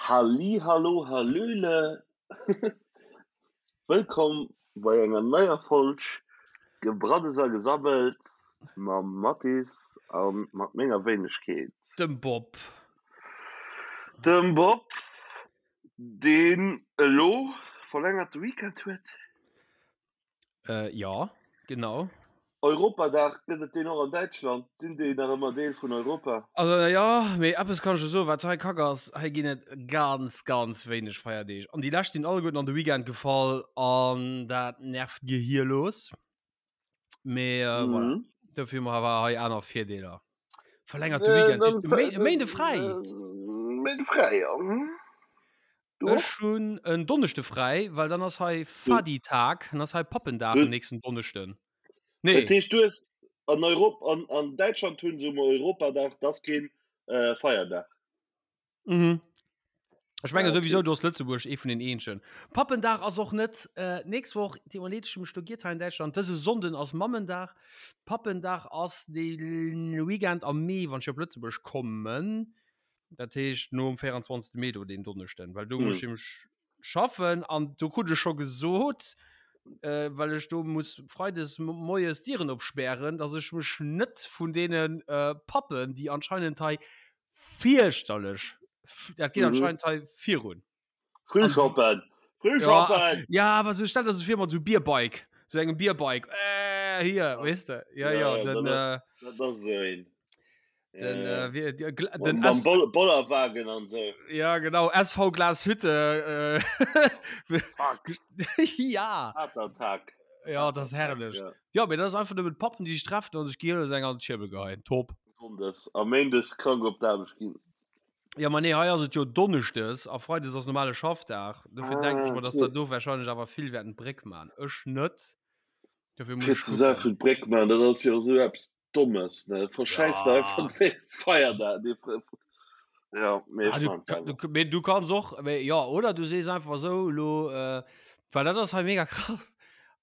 Halli hallo hallöle, wëllkomm bei enger neier Folg Gebraddels a Gesabbels mam Mathis a mat menger Wéinegkeet. Dem Bob. Dem Bob, deen elo verlängerte Weekend huet. Äh, ja, genau. Europadag, gëtt et deen och an Däitschland? Sinn déi nach ëmmer Deel vun Europa? Also jo, mee eppes kann ech der soen, wat hei kack ass, hei ginn et ganz, ganz wéineg Feierdeeg. An déi lescht sinn alleguerten an de Weekend gefall an dat nervt gehierlos. Mee äh, voilà. Mhm. Dofir hu mer awer hei aner Virdeeler. Verlängerte Weekend, Äh, e Méi- e Méinde fräi. Méinde fräi, ja. Mhm. Du och? Ech hunn en Donneschde fräi, well dann ass hei Fadi-Tag, dann ass hei Pappendag den nächsten Donneschden. Nee. Dat heescht, du hues an Europ an, an Däitschland hunn se um Europadag, dat ass keen äh, Feierdag. Mhm. Ech menge ah, okay. souwisou, du ass Lëtzebuerg ee vun den eenzegen. Pappendag ass och net äh, nächst Woch, déi mal leet ech mech do giert hei in Däitschland. Dëse Sonnden ass Mammendag. Pappendag ass de Weekend am Mee, wann ech op Lëtzebuerg kommen. Dat heescht nom 24. Mee do deen Donneschden, well do muss ech nämlech schaffen an do krut ech scho gesot, äh, well ech do muss freides moies d'Dieren opspären, dass ech mech net vun deene äh, Pappen, déi anscheinend hei fierchterlech, dat geet anscheinend hei virun. Frühschoppen! Frühschoppen! Ja, awer sou stell der se vir mat sou Bierbike, sou engem Bierbike, äh, hier, weess de, ja, ja, ja, den, äh, dat ass esou een. Den, Ja. äh, wie, die, Gla- den Mam S Boll Bollerwagen an sou. Ja, genau, SV Glashütte. Äh, Fuck. ja. Harter Tag. Ja, das ist herrlech. Ja. Ja, mee dat ass einfach nëmmen d'Pappen, déi sech treffen an sech gehierlos eng an d'Schierbel geheien. Top. Sonndes a Méindes krank op d'Aarbecht ginn. Ja, ma nee, hei ass et jo Donneschdes a Freides ass normale Schaffdag. Dofir ah, denke ich mer, dass okay. der do wahrscheinlech awer vill wäerten d'Bréck man. Ech net. Dofir muss ich gucken. D'Bréck man, dat ass jo sou eppes Dommes, ne? Verschäiss ja. einfach den Feierdag. Ja, mee ah, du, du, mee du kannst och, mee, ja, oder du sees einfach so, lo, äh, weil dat ass hei mega krass.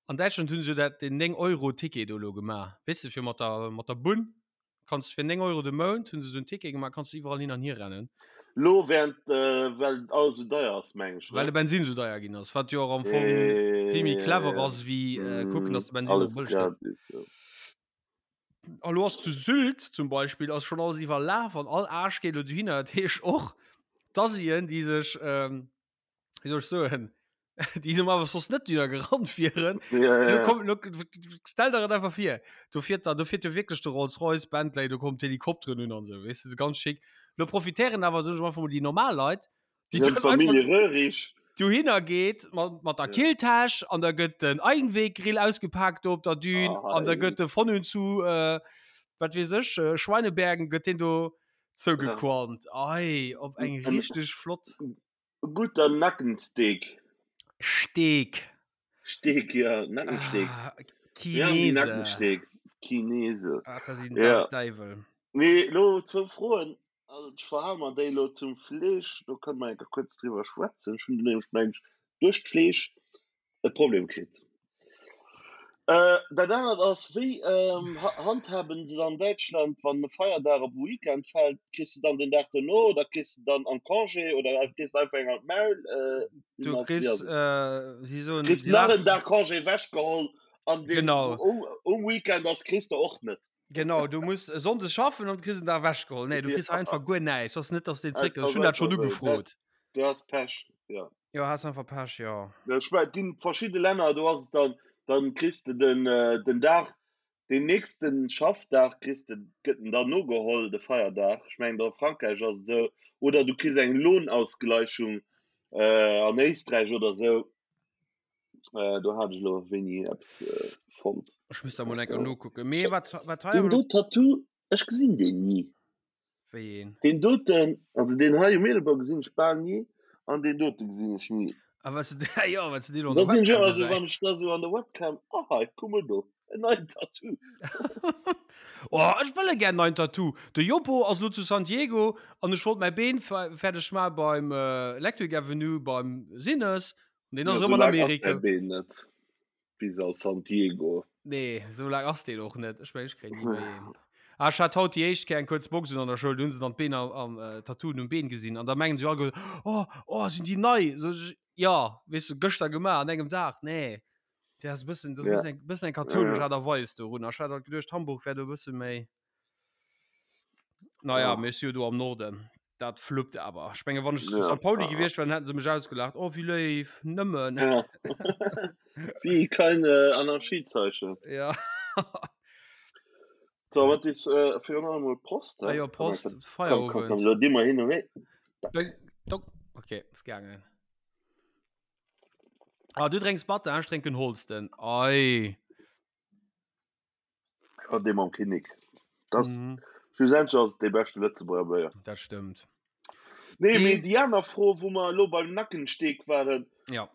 An Däitschland hunn se dat den 9 Euro Ticket do lo gemaach. Weess de, fir mat der, mat der Bunn kanns fir 9 Euro de Mount hunn se so en Ticket gemaach, kanns du iwwerall hin an hier rennen. Lo während äh, well alles so deier ass, meng ech. Ne? Well de Bensin so deier ginn ass, wat jo och am Fong äh, vill méi clever ass, wéi äh, kucken, dass de Bensin alles bëlleg gëtt. Ja. A lo ass zu Sylt zum Beispill ass schon alles iwwerlaf an all Aarsch geet lo dohinner. Dat heescht och d'Asien, déi sech ähm, wéi soll ech soen, déi normalerweis soss net dohinner gerannt wieren. Ja, ja, Lo ja. komm, lo, stell der et einfach vir, do fiert da, do fiert jo wierklech de Rolls-Royce, Bentley, do kommen d'Helikopteren un an sou, weess de, ganz schick. Lo profitéieren awer, soen ech einfach mol, déi normal Leit, déi dann Familie Röhrig dohinner geet mat, mat der ja. Killtäsch an da gëtt den Einweggrill ausgepackt do op der Dün ah, an da gëtt de von und zu äh, wat weess ech äh, Schweinebergen gëtt den do zougequalmt. Ja. Ei, op eng richtig flott. Guter Nackensteak. Steak. Steak, ja, Nackensteaks. Ah, Chinese. Ja, Nackensteaks. Chinese. Ah, das sind ja. Deiwel. Nee, lo zwou Froen. Also ech verhale mer déi elo zum Fleesch, do kënne mer enker kuerz driwwer schwätzen. Ech hunn do nämlech, meng ech, duerch d'Fleesch e Problem kritt. Dat anert ass, wéi handhaben se et an Däitschland, wann e Feierdag op e Weekend fält? Kriss de dann den Dag dono oder kriss de dann am Congé oder kriss de einfach eng an d'Maul? Du kriss, si soen, Kriss nach en Dag Congé ewechgeholl an deen, wou um Weekend ass, kriss de och net. Genau, du muss e Sonndes schaffen an kriss en Dag ewechgeholl. Nee, du kriss einfach guer näischt. Ass net, dass den zréck. Ech hunn dat schonn ugefrot. Du has Pech, ja. Jo, has einfach Pech, jo. Ech mein, et ginn verschidde Länner, do ass et dann, dann kriss de den, den Dag, den nächsten Schaffdag kriss de, gëtt en dann nogeholl, de Feierdag. Ech mengen, a Frankräich ass et esou. Oder du kriss eng Lohnausgleichung an Éisträich oder esou. Äh, do hat ech lo wéini eppes äh, fonnt. Ech muss da mol enker nokucken. Mee wat, wat hei Den do Tattoo, ech gesinn deen ni. Wéi een? Den doten, also den hei um Eelebou gesinn ech bal ni an den dote gesinn ech ni. A was du, ja, wat du deen an der Webcam gesäis. Also wann ech da sou an der Webcam, ah hei, kuck mol do, en neien Tattoo. Oh, ech wëll e gär neien Tattoo. De Joppo ass lo zu San Diego an ech wollt mäi Been fäerdeg maache beim Electric Avenue beim Sinnes Den ass Ja, erëm an sou laang ass Amerika. däi Been net bis a San Diego. Nee, sou laang ass deen och net. Ech mengen, ech kréien ni méi een. Ah, ech hat haut déi éischt Kéier eng kuerz Box un an der Schoul, do hunn se dann d'Been am, am äh, Tattooen um Been gesinn an da mengen se all, oh, oh, sinn déi nei? So, ech, ja, weess du, gëschter gemaach an engem Dag, nee. Dat ass e bëssen, dat ass e bëssen eng, bëssen eng kathoulesch Aart a Weis dorun. Ech hat halt geduecht, Hamburg wär do e bësse méi. Naja, ja. mee ech si jo do am Norden. Dat fluppt awer. Ech menge wann ech zu ja. St. Pauli gewiescht wär, dann hätten se mech ausgelacht. Oh, wéi léif, nëmmen. Ja. Wie kein äh, Anarchiezeichen. Ja. So, wat is äh, fir an allem Prost. Ah, ja, Prost, Feierabend. Komm, komm, komm, so, hin und her. Okay, ist gegangen. Ah, du drénks Batter, ech drénken Holsten. Ei. Ja, dee mam Kinnek. Das, mhm. Schlussendlich ass et dee beschte Lëtzebuerger Béier. Dat stëmmt. Nee, mee déi aner Fro, wou mer elo beim Nackensteak waren. Ja.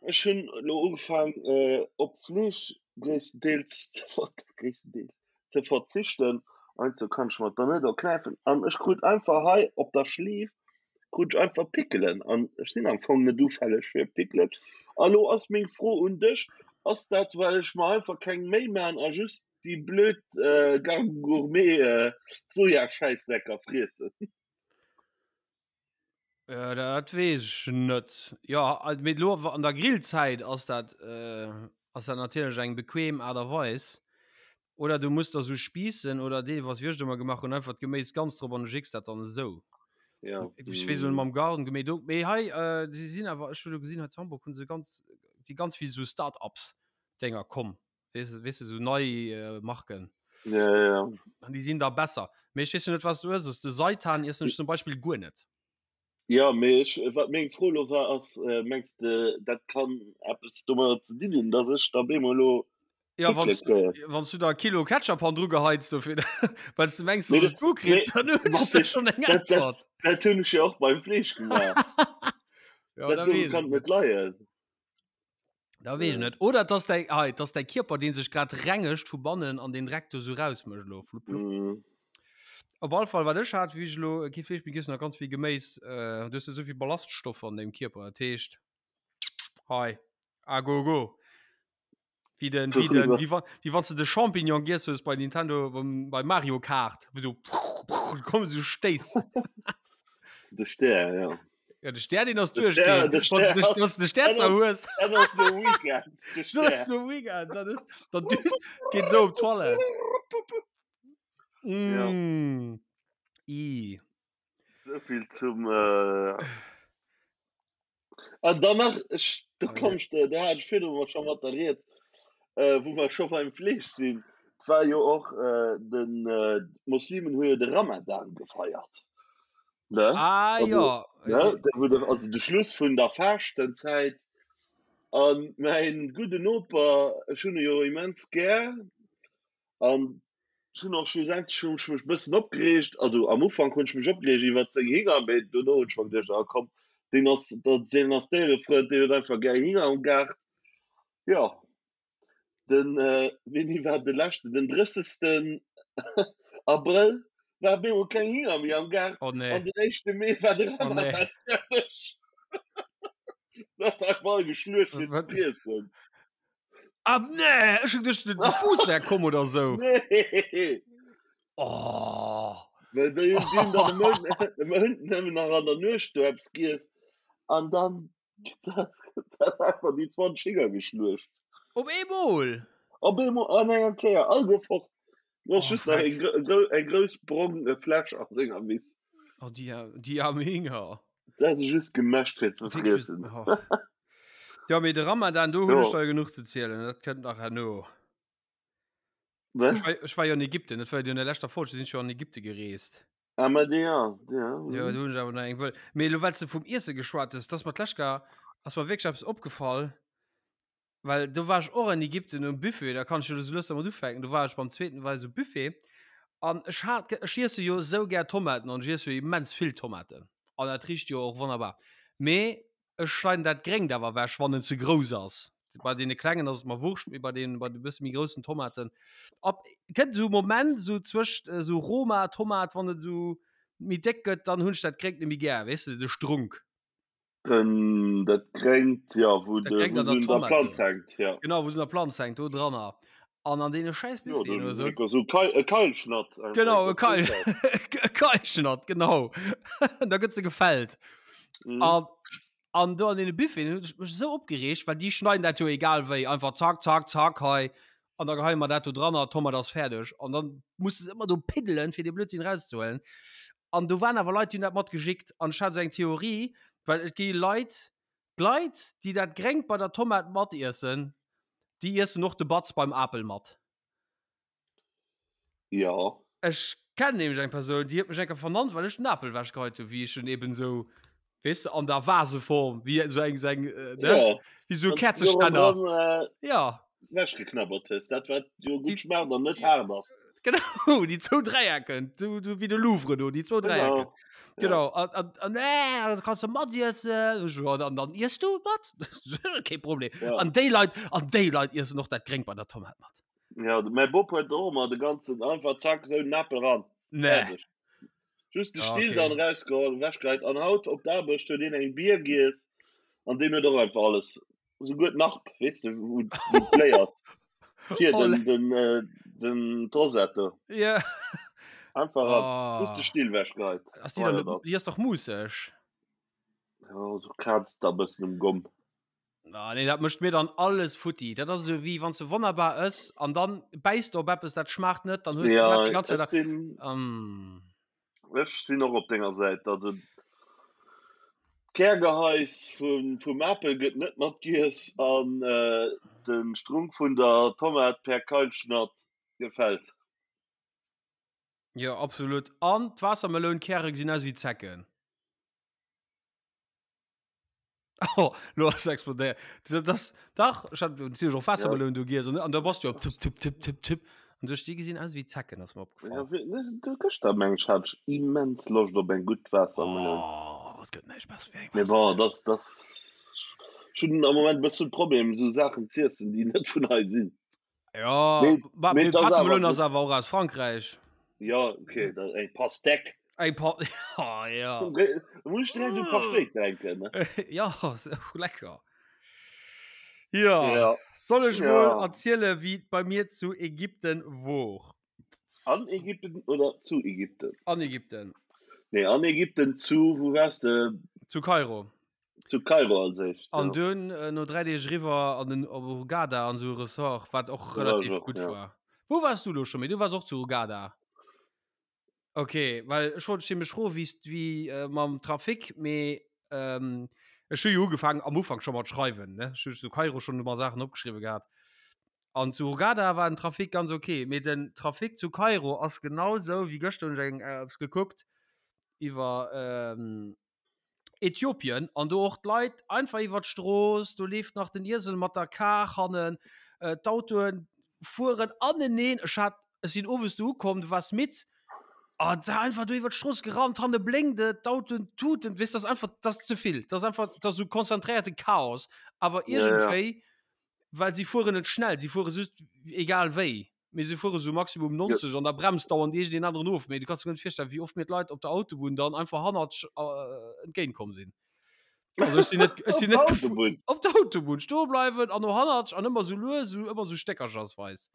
Ech hunn elo ugefaang, äh, op Fleesch gréisstendeels ze ver gréisstendeels ze verzichten. Heiansdo kann ech mer et dann net erknäifen. An ech krut einfach hei op der Schleef krut ech einfach Pickelen an ech sinn am Fong net ufälleg fir Pickelen. A lo ass meng Fro un dech, ass dat well ech mer einfach keng Méi man a just déi blöd Garden Gourmet Sojaschäissdrecker friessen? Dat weess ech net. Jo, mee elo an der Grillzäit ass dat ass dat natierlech eng bequem Aart a Weis. Oder du muss der sou Spiissen oder deelweis, wéi ech et ëmmer gemaach hunn, einfach d'Geméis ganz drop an du jicks dat dann esou. Ja. Ech weess elo mam Garden Gourmet do, mee hei si sinn awer, ech hu lo gesinn hei zu Hamburg hu se ganz, si ganz vill sou Start-ups Dénger komm, weess de, weess de, sou nei Marken. Ja, ja, ja. An déi sinn da besser. Mee ech weess jo net, wat s du ëss. De Seitan iessen ech zum Beispill guer net. Jo, mee ech, wat meng Fro elo war, ass, mengs de, dat kann eppes domadder ze dinn hunn, datt ech da bemol elo Ja, wann wann du da Kilo Ketchup han dru geheits dofir, well du mengs, dass et gutt kritt, dann hunn ech der schonn eng Äntwert. Dat hunn ech jo och beim Fleesch gemaach. Ja, da weess kann et net leien. Da weess ech net. Oder et ass däi, hei, et ass däi Kierper, dee sech grad rengegt vu bannen an den Dreck do sou rausmécht elo. Flupp, flupp. Mm. Op alle Fall, wat ech hat, wéi ech elo kee Fleesch méi giess hunn a ganz vill Geméis, äh, du hues jo souvill Ballaststoffer an dengem Kierper, dat heescht, hei, a go go. Wéi den, wéi den, wéi wann, wéi wann s de de Champignon giess hues bei Nintendo, beim, bei Mario Kart, wou sou, kommen sou Stéiss. De Stär, ja. Ja, de Stär, den ass duerchgeen. De Stär, de Stär, de Stär zerhues. Dat ass de Weekend. De Stär. Dat ass de Weekend. Dat ass, dat düst, geet sou op d'Toilette. Mm. Ja. I. Souvill zum. Äh... An dann nach, ech, do komm ech, do hat ech virdru mol scho mat der Rieds, äh, wou mer scho beim Fleesch sinn. Et war jo och äh, den, äh, d'Moslimen hu jo de Ramadan gefeiert. Ne? Ah, also, ja. Ne? Da wou de, also de Schluss vun der Faaschtenzäit. An mäin gudden Noper, ech hunn e jo immens gär, an ech hunn och schlussendlech hunn ech mech e bëssen opgereegt, also am Ufank hunn ech mech opgereegt iwwert seng Hinger, mee dono hunn ech mer geduecht, ah komm, deen ass, deen ass Déierefrënd, deen huet einfach gär Hinger am Gaart. Jo, Den wéini war de leschten? Den 30. Abrëll war op eemol keng Hinger méi am Gaart. Oh nee. An den éischte Mee war de Oh nee. Ramadan fäerdeg. Dat hat einfach geschluecht fir ze friessen. Ah nee, ech hu geduecht, de Fuuss wär komm oder sou. Nee. Oh. Well déi hunn déi hunn dann e Mount e Mount nëmmen nach an der Nuecht do eppes giess an dann Dat einfach déi 20 Hinger geschluecht. Op eemol? Op eemol an enger Kéier, all gouf fort. Du hast oh, just nach eng, eng grouss brong äh, Fläsch an senger Wiss. Oh, die, die arme Hinger. Dat ass just gemäscht fir ze friessen. Oh. Ja, mee de Ramadan, do hunn ech der genuch ze zielen. Dat kënnt nach herno. Ech war, ech war jo an Ägypten, dat war jo an der leschter Folg, sinn ech jo an Ägypten gereest. Ah, ma déi, ja, ja. Ja, do hunn ech awer nach eng wëll. Mee elo, well s de vum Iesse geschwat hues, dat ass mer d'lescht Kéier, ass mer wierklech eppes opgefall, well do war ech och an Ägypten um Buffet, da kann ech jo elo sou lues dermat ufänken, do war ech beim zweeten war ech um Buffet an ech hat, ech iesse jo esou gär Tomaten an ech iesse jo immens vill Tomaten an dat richt jo och wonnerbar, mee Ech schneiden dat Gréngt awer ewech, wann en ze grouss ass. Bei deene klengen ass et mer wurscht, mee bei den, bei de bësse méi groussen Tomaten. Ab, kënnt esou e Moment, esou zwëscht esou Roma Tomat, wann et esou méi déck gëtt, dann hunn ech dat Gréngt net méi gär, weess de, de Strunk. Den, dat Gréngt, jo, wou Dat de, Gréngt wou an se der un der Tomat Planz do. hänkt, jo. Genau, wou se un der Planz hänkt, do dranner. An an deene schäiss Jo, Buffeten oder sou. So Keil, e Keilschnatt. Genau, e Keil, e Keilschnatt, genau. da gëtt se gefällt. Mhm. An, an do an deene Buffeten hunn ech mech esou opgereegt, well déi schneiden dat jo egal wéi, einfach zack, zack, zack hei. An da geheie mer dat do dran a Tomat ass fäerdeg. An dann muss de ëmmer do piddelen, fir dee Blödsinn rauszehuelen. An do waren awer Leit, déi hunn dat mat gejickt. An ech hat esou eng Theorie, well et gi Leit, D'Leit, déi dat Gréngt bei der Tomat matiessen, déi iessen och de Batz beim Apel mat. Jo. Ech kennen nämlech eng Persoun, déi huet mech eng Kéier vernannt, well ech den Apel ewechgeheit hunn, wéi ech en eben esou, weess de, an der Vaseform, wéi esou eng, esou eng, ne, Jo. wéi esou e Käerzestänner. Jo. Ewechgeknabbert hues, dat wat jo gutt schmaacht an net haart ass. Genau, déi zwou Dräiecken, du, du, wéi de Louvre do, déi zwou Dräiecken. Genau. Genau, an, an, an äh, das kannst du mat iessen. Ech so, Ja, dann, dann iess du mat. Kee Problem. Ja. An déi Leit, an déi Leit iessen och dat Gréngt bei der Tomat mat. Ja, mäi Bop huet och ëmmer de ganzen, einfach zack, esou den Apel ran. Nee. Fäerdeg. Just de Ja, Still okay. dann rausgeholl, ewechgeheit. An haut op d'Aarbecht huet een eng Bier giess an deen huet och einfach alles Souguer d'Narb, weess de, wou wou d'Bléi ass. Fir Oh, den, den, äh, den d'Rosette do. Ja. Einfach ran. Just de Oh. Still wechgeheit. Ass déi dann Weider net, dat. déi ass dach muusseg? Ja, so krazt da bëssen um Gomm. Ah, nee, dat mécht mir dann alles futti. Dat ass esou wéi wann s de wonnerbar ëss an dann bäiss de op eppes, dat schmaacht net, dann hues de dat Ja, déi ganz Zäit ech a. sinn, Mm. Ech sinn och op denger Säit. Also d'Kärgeheis vum, vum Apel gëtt net matgiess an de Strunk vun der Tomat per Keilschnatt gefält. Jo, absolut. An d'Waassermelounkäre gesinn aus wéi Zecken. Oh, lo ass explodéiert. Das, das, dach, ech hat natierlech och Waassermeloun do giess an, an da bass du op tipp, tipp, tipp, tipp, tipp. An duerch déi gesinn aus wéi Zecken, ass mer opgefall. Ja, wéi, ne, du, gëschter meng ech hat ech immens Loscht op eng gutt Waassermeloun. Oh, et gëtt näischt besser wéi eng Mee bon, Waassermeloun. das, das, ech hunn am Moment e bëssen Problem, esou Saachen z'iessen, déi net vun hei sinn. Ja, Mee, ma, mee mee et ass awer Waassermeloun gutt. ass awer och aus Frankräich. Ja, okay, da, eng Pastèque. Eng Pa oh, ja. Da muss ich direkt un Pastéik denken. Ne? ja, so lecker. Ja, Ja. soll ech Ja. mol erziele wéi et bei mir zu Ägypten wor? An Ägypten oder zu Ägypten? An Ägypten. Nee, an Ägypten zu, wou waars de? Zu Kairo. Zu Kairo als éischt. An ja. dunn äh, no 3 Deeg riwwer an den op Hurghada an sou e Ressort, wat och Da war ech relativ och, gutt ja. war. Wou waars du lo scho méi? Du waars och zu Hurghada. Okay, well ech wollt dech nämlech froen, wéi wéi äh, mam Trafic, mee ähm, ech hu jo ugefaangen am Ufank scho mat schreiwen, ne? Ech hu zu Kairo schonn ëmmer Saachen opgeschriwwe gehat. An zu Hurghada war den Trafic ganz okay, mee den Trafic zu Kairo ass genau sou wéi gëschter hunn ech eng äh, eppes gekuckt iwwer ähm, Äthiopien an do och d'Leit einfach iwwer d'Strooss, do leeft nach den Iesel mat der Kar hannen, äh, d'Autoen fueren aneneen. Ech hat, ech sinn owes do ukomm, du waars midd, ah, da einfach do iwwer d'Strooss gerannt, hanne blénkt et, d'Autoen tuten, weess, dat ass einfach, dat ass ze vill, dat ass einfach, dat ass esou konzentréierte Chaos, awer Ja, ja. iergendwéi, well si fueren net schnell, si fuere just egal wéi. Mee se fuere sou maximum 90 an da bremst dauernd iergendeen aneren of. Mee du kanns der guer net virstellen, wéi oft mir d'Leit op der Autobunn dann einfach hannert äh, entgéint komm sinn. Also ech sinn net, ech sinn net Autobunn. Op der Autobunn stoe bleiwen an no hannert an ëmmer sou lues, sou ëmmer sou stéckerchersweis.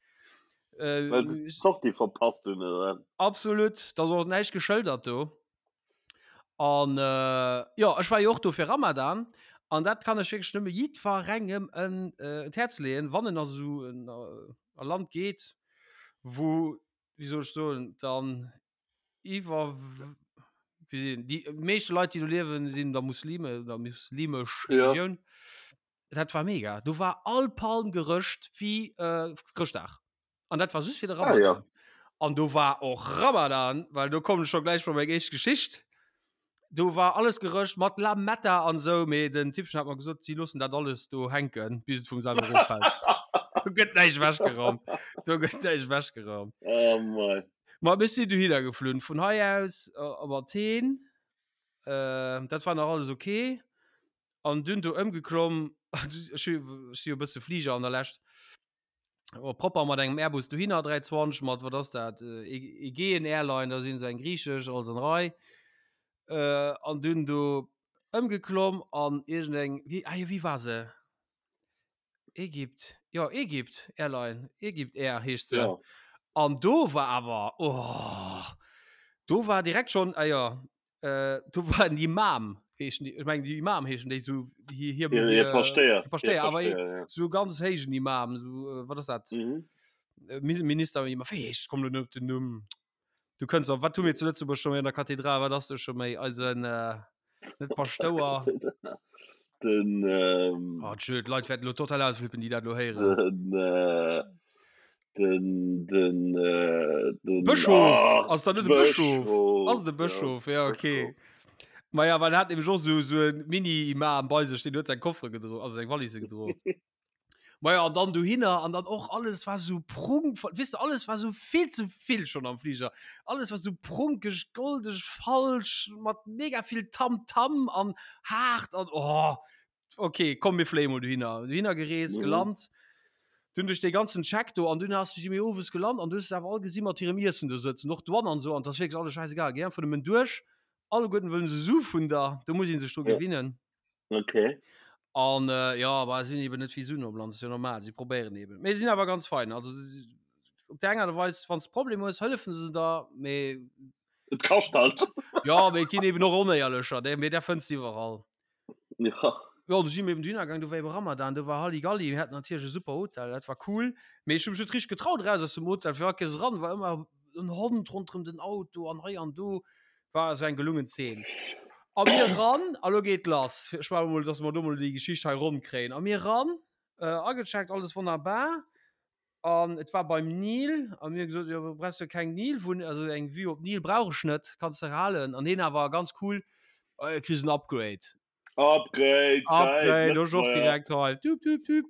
Äh, Well se d'Sortie verpasst hunn, oder? Absolut, da ass och näischt geschëldert do. An äh, jo, ech war jo och do fir Ramadan an dat kann ech wierklech nëmme jiddwerengem en äh, d'Häerz leeën, wann en a sou en äh, a Land geet, wou, wéi soll ech soen, dann iwwer wéi déi meeschte Leit, déi do liewen, sinn da Muslime oder muslimesch Ja. Religioun. Dat war mega. Do war all Palm gerëscht wéi äh, Chrëschtdag. An dat war just fir de Ah, ja. Ramadan. An do war och Ramadan, well do kommen ech scho gläich bei meng éischt Geschicht. Do war alles gerëscht mat Lametta an sou, mee den Typchen hat mer gesot, si loossen dat alles do hänken, bis et vum selwer eroffält. Do gëtt näischt ewechgeraumt. Do gëtt näischt ewechgeraumt. Oh mei. Ma mir sinn dohinner geflunn, vun hei aus op Athen. Äh, dat war nach alles okay. An dunn do ëmgeklomm, ech hu ech si jo e bësse Fliger an der Lescht. Oh, propper mat engem Airbus dohinner 320 mat wat ass dat äh, Aegean Airline, da sinn se eng griechesch alles an Rei. Äh, an dunn do ëmgeklomm an iergendeng wéi ah jo wéi war se? Egypt? Jo, Egypt Airline, Egypt Air heescht se. Ja. An do war awer, oh, do war direkt schon, ah ja, äh, do war en Imam, heeschen déi, ech mengen déi Imam heeschen déi sou, hir, hir, Hir, hir Paschtéier. hir Paschtéier, awer ja. sou ganz héijen Imam, sou, äh, wat ass dat? Mhm. Äh, Minister, Imam, wéi heescht, komm lo net op den Numm. Du kënns op, wat hu mir zu Lëtzebuerg scho méi an der Kathedral, wat ass do scho méi eisen, äh, net Paschtouer. Den, ähm, Oh, tschö, d'Leit wäerten lo total ausflippen, déi dat lo héieren. den, äh, den, den, äh, den Bëschof! Ah, Ass dat net e Bëschof? Bëschof, Ass et e Bëschof? Ja, okay. Bëschof. Maja, well en hat nämlech och sou, sou e Mini-Imam bei sech, deen huet seng Koffere gedro, also seng Valise gedro. Maja, an dann dohinner an dann och alles war sou prunkvoll, weess de, alles war sou vill ze vill schonn am Fliger. Alles war sou prunkeg, goldeg, falsch, mat mega vill Tamtam an haart an oh, okay, komm mir fléie mol dohinner. Dohinner gereest, Mhm. gelant, dunn duerch dee ganzen Check do an dunn ass si mir owes gelant an du hues se awer all gesi mat hirem Iessen do sëtzen, och d'Douane an esou an 't ass wierklech alles schäisegal, géi einfach nëmmen duerch, alleguerten wëllen se Su vun der, do muss ee sech dru Ja. gewinnen. Okay. An äh, ja, aber sinn eben net vill Suen am Land, ist ja normal, sie probéieren eben. Mee sinn awer ganz fein, also op der enger Weis, wann s Problem hues, hëllefen se der, mee Et kascht halt. ja, mee et ginn eben och Onéierlecher, dé, mee där fënns de iwwerall. Ja. Ja, du si mir eben dohinner gaang, do war eben Ramadan, do war Halligalli, mir haten natierlech e super Hotel, dat war cool, mee ech hu mech net richteg getraut eraus aus dem Hotel, fir all Kéiers eran war ëmmer en Hond ronderëm den Auto an hei an do. War also eng gelungen Zeen. A mir ran, a lo geet lass. Ech maache mol, dass mer do mol déi Geschicht hei ronn kréien. A mir ran, äh, agecheckt, alles wonnerbar. An et war beim Nil. A mir gesot, jo, brauchst du keng Nil-Wunn, also eng Vue op Nil brauch ech net, kanns de halen. An heen awer ganz cool, äh, kriss en Upgrade. Upgrade, Upgrade, ech och direkt hei. Tüp, tüp, tüp.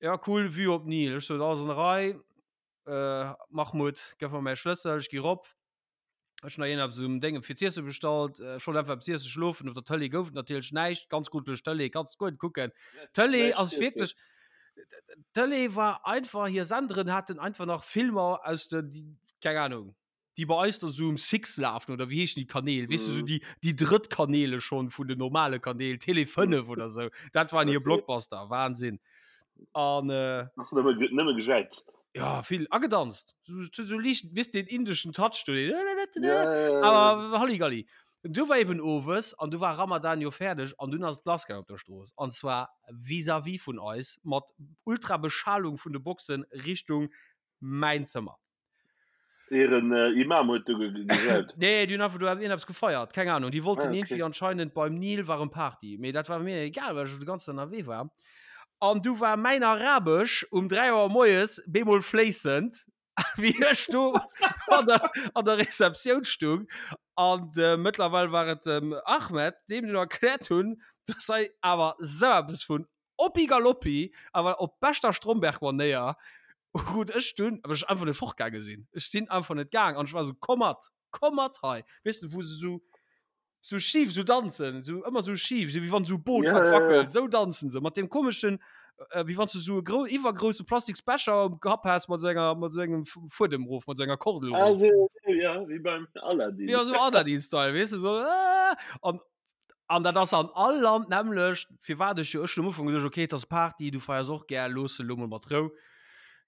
Ja, cool, Vue op Nil. Ech sot, alles an der Rei. Äh, Mahmoud, gëff mer mäi Schlëssel, ech gi rop. Ech hunn nach iergendeppes um Dénge fir z'iesse bestallt. Ech wollt einfach eppes iessen, schlofen. Op der Tëlee gouf et natierlech näischt. Ganz grujeleg Tëlee, kanns guer net kucken. D'Tëlee ass wierklech, d'Tëlee war einfach, hir Senderen haten einfach nach Filmer aus de, keng Ahnung, déi bei eis da sou um Six lafen oder wéi heeschen déi Kanäl, weess de, sou déi, déi drëtt Kanäle schonn vun den normale Kanäl, Télé 5 oder sou. Dat waren hir Blockbuster, Wahnsinn. An, äh. Ach, nëmme, nëmme gejäizt. Ja, vill agedanzt. So, so, so liicht, wisst den indeschen Touch do, den ja, ja, ja. Aber Halligalli. Du war eben owes an du war Ramadan jo fäerdeg an dunn ass et lassgaang op der Strooss. An zwar vis-à-vis vun eis mat ultra Beschalung vun de Boxen Richtung mäin Zëmmer. Ieren Imam huet do gejaut. Nee, déi hunn einfach do iergendeppes gefeiert, keng Ahnung. Déi wollten Ah, okay. iergendwéi anscheinend beim Nil war erëm Party. Mee dat war mir egal, well ech de ganzen Dag ënnerwee war. An du war mäin Arabesch um 3 Auer moies bemol fléissend, wéi ech do an der, an der Receptioun stung. An äh, mëttlerweil war et dem Ahmed, deem dunn erkläert hunn, dass hei awer sou eppes vun Oppi Galoppi, awer op beschter Stromberg-Manéier, krut ech dunn, well ech einfach net fortgaange sinn, ech sinn einfach net gaang an ech war esou, komm mat, komm mat hei, weess de, wou se esou, esou schif esou danzen, esou ëmmer esou schif, esou wéi wann esou e Boot Ja, wat ja, ja. wackelt, esou danzen se, mat deem komeschen, wéi wann s de esou e grou, iwwergrousse Plastiksbecher um Kapp häss mat esou enger, mat esou engem Fuedem erof, mat esou enger Kordel Ah, erof. esou, ja, wéi beim Aladdin. Ja, esou Aladdin-Style, weess de, esou, aah, an An dat ass an all Land d'nämmlecht, firwat ech jo, ech hunn am Ufank geduecht, okay, et ass Party, du feiers och gär, looss se elo mol mat Rou.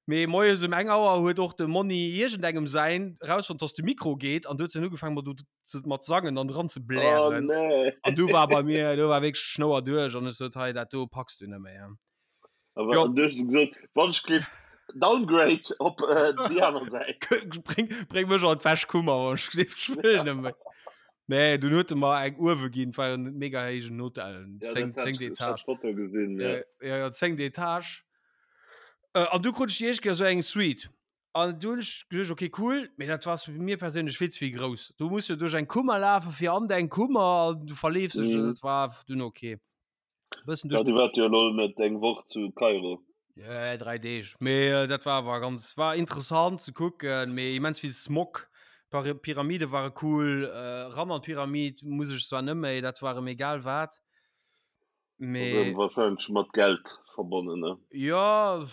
Mee moies um eng Auer huet och de Monni iergendengem säin erausfonnt, dass de Mikro geet an du huet en ugefaangen mat do ze mat sangen an dran ze Oh blären. nee. An du war bei mir, do war wierklech d'Schnouer duerch an ech sot, hei dat do packs du net méi. Aber Jo. an du hues gesot, wann ech géif downgrade op äh, déi aner Säit. Bréng, bréng mech an d'Wäschkummer, wann ech géif, ech wëll net méi. Nee, dunn huet e mer eng uewe ginn, et war jo en mega héijen Hotel, Ja, 10, dat hat 10 ech, ech hat Etage. d'Foto gesinn, ja. Ja, ja, ja, 10. Etage. Äh, an du krut ech déi éischt Kéier esou eng Suite. An du hunn ech geduecht, okay, cool, mee dat war mir perséinlech vill ze vill grouss. Du muss jo duerch eng Kummer lafen, fir an deng Kummer, an du verleefs dech, Mhm. dat war dunn okay. Bëssen Ja, duerch du waart jo elo net eng Woch zu Kairo. Ja, 3 Deeg. Mee äh, dat war awer ganz war interessant ze kucken, mee immens vill Smog. Par Pyramide ware cool, äh, ran an d'Pyramid muss ech zwar net méi, dat war em egal wat. Mee Wahrscheinlech mat Geld verbonnen, ne? Ja,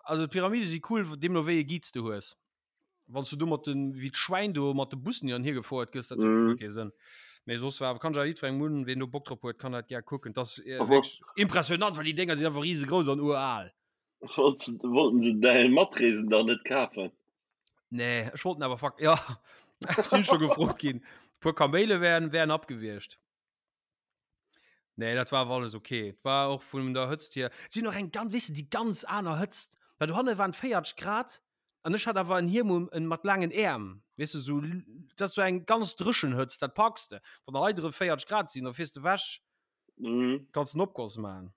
also d'Pyramide si cool, deemno wéi e Guide s du hues. Wann s du do mat den, wéi d'Schwäin do mat de Bussen hin an hier gefouert gëss, dat huet guer Mhm. kee Sënn. Mee soss war, kann ech awer jiddwerengem un, ween do Bock drop huet, kann dat gär kucken. Dat ass Aber wierklech impressionant, well déi Dénger sinn einfach risegrouss an ural. Wollten se däi Matreesen dann net kafen? Nee, ech wollten awer fuck, ja, ech sinn scho gefrot ginn. Puer Kaméile wären, wären abgewiescht. Nee, dat war awer alles okay. Et war och vun der Hëtzt hier. Et sinn och eng ganz, weess de, déi ganz aner Hëtzt. Well dohanne waren 40 Grad an ech hat awer en Hiem um, en mat laangen Äerm. Weess de, sou, dat ass sou eng ganz dréchen Hëtzt, dat packs de. Wann der hei drëm 40 Grad sinn, da fiers de wech, Mhm. kanns en Opgoss maachen.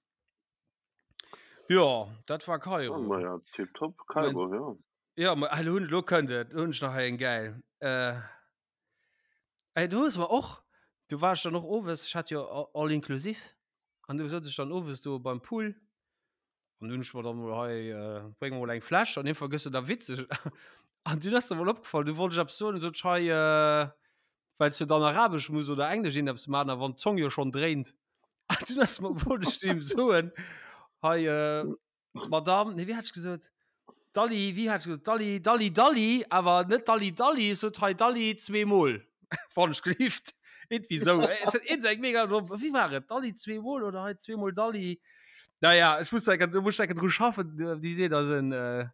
Jo, dat war Kairo. Oh, ma ja, tipptopp, Kairo, ja. Ja, ma elo hunn, elo kënnt et, elo hunn ech nach hei eng gäil. Äh, ey, do hues mer och, du war ech dann och owes, ech hat jo all inclusive, an du souz ech dann owes do beim Pool, an du hunn ech mer dann mol hei, äh, bréng mer mol eng Fläsch, an iergendwann gëss de da witzeg, an dunn ass der mol opgefall, du wollt ech eppes soen, sot ech hei, äh, well s du dann Arabesch muss oder Englesch iergendeppes maachen, a wann d'Zong jo schonn dréint, an dunn ass mer, wollt ech zu him soen, hei, äh, Madame, nee, wéi hat ech gesot? Dalli, wéi hat ech gesot? Dalli, Dalli, Dalli, awer net Dalli, Dalli, ech sot hei Dalli zweemol, wann ech gelift. Irgendwie sou. Ech hat iergend eng mega domm, wéi war et? Dalli zweemol oder hei zweemol Dalli? Naja, ech muss enke, do muss ech enke dru schaffen, déi seet eisen, äh,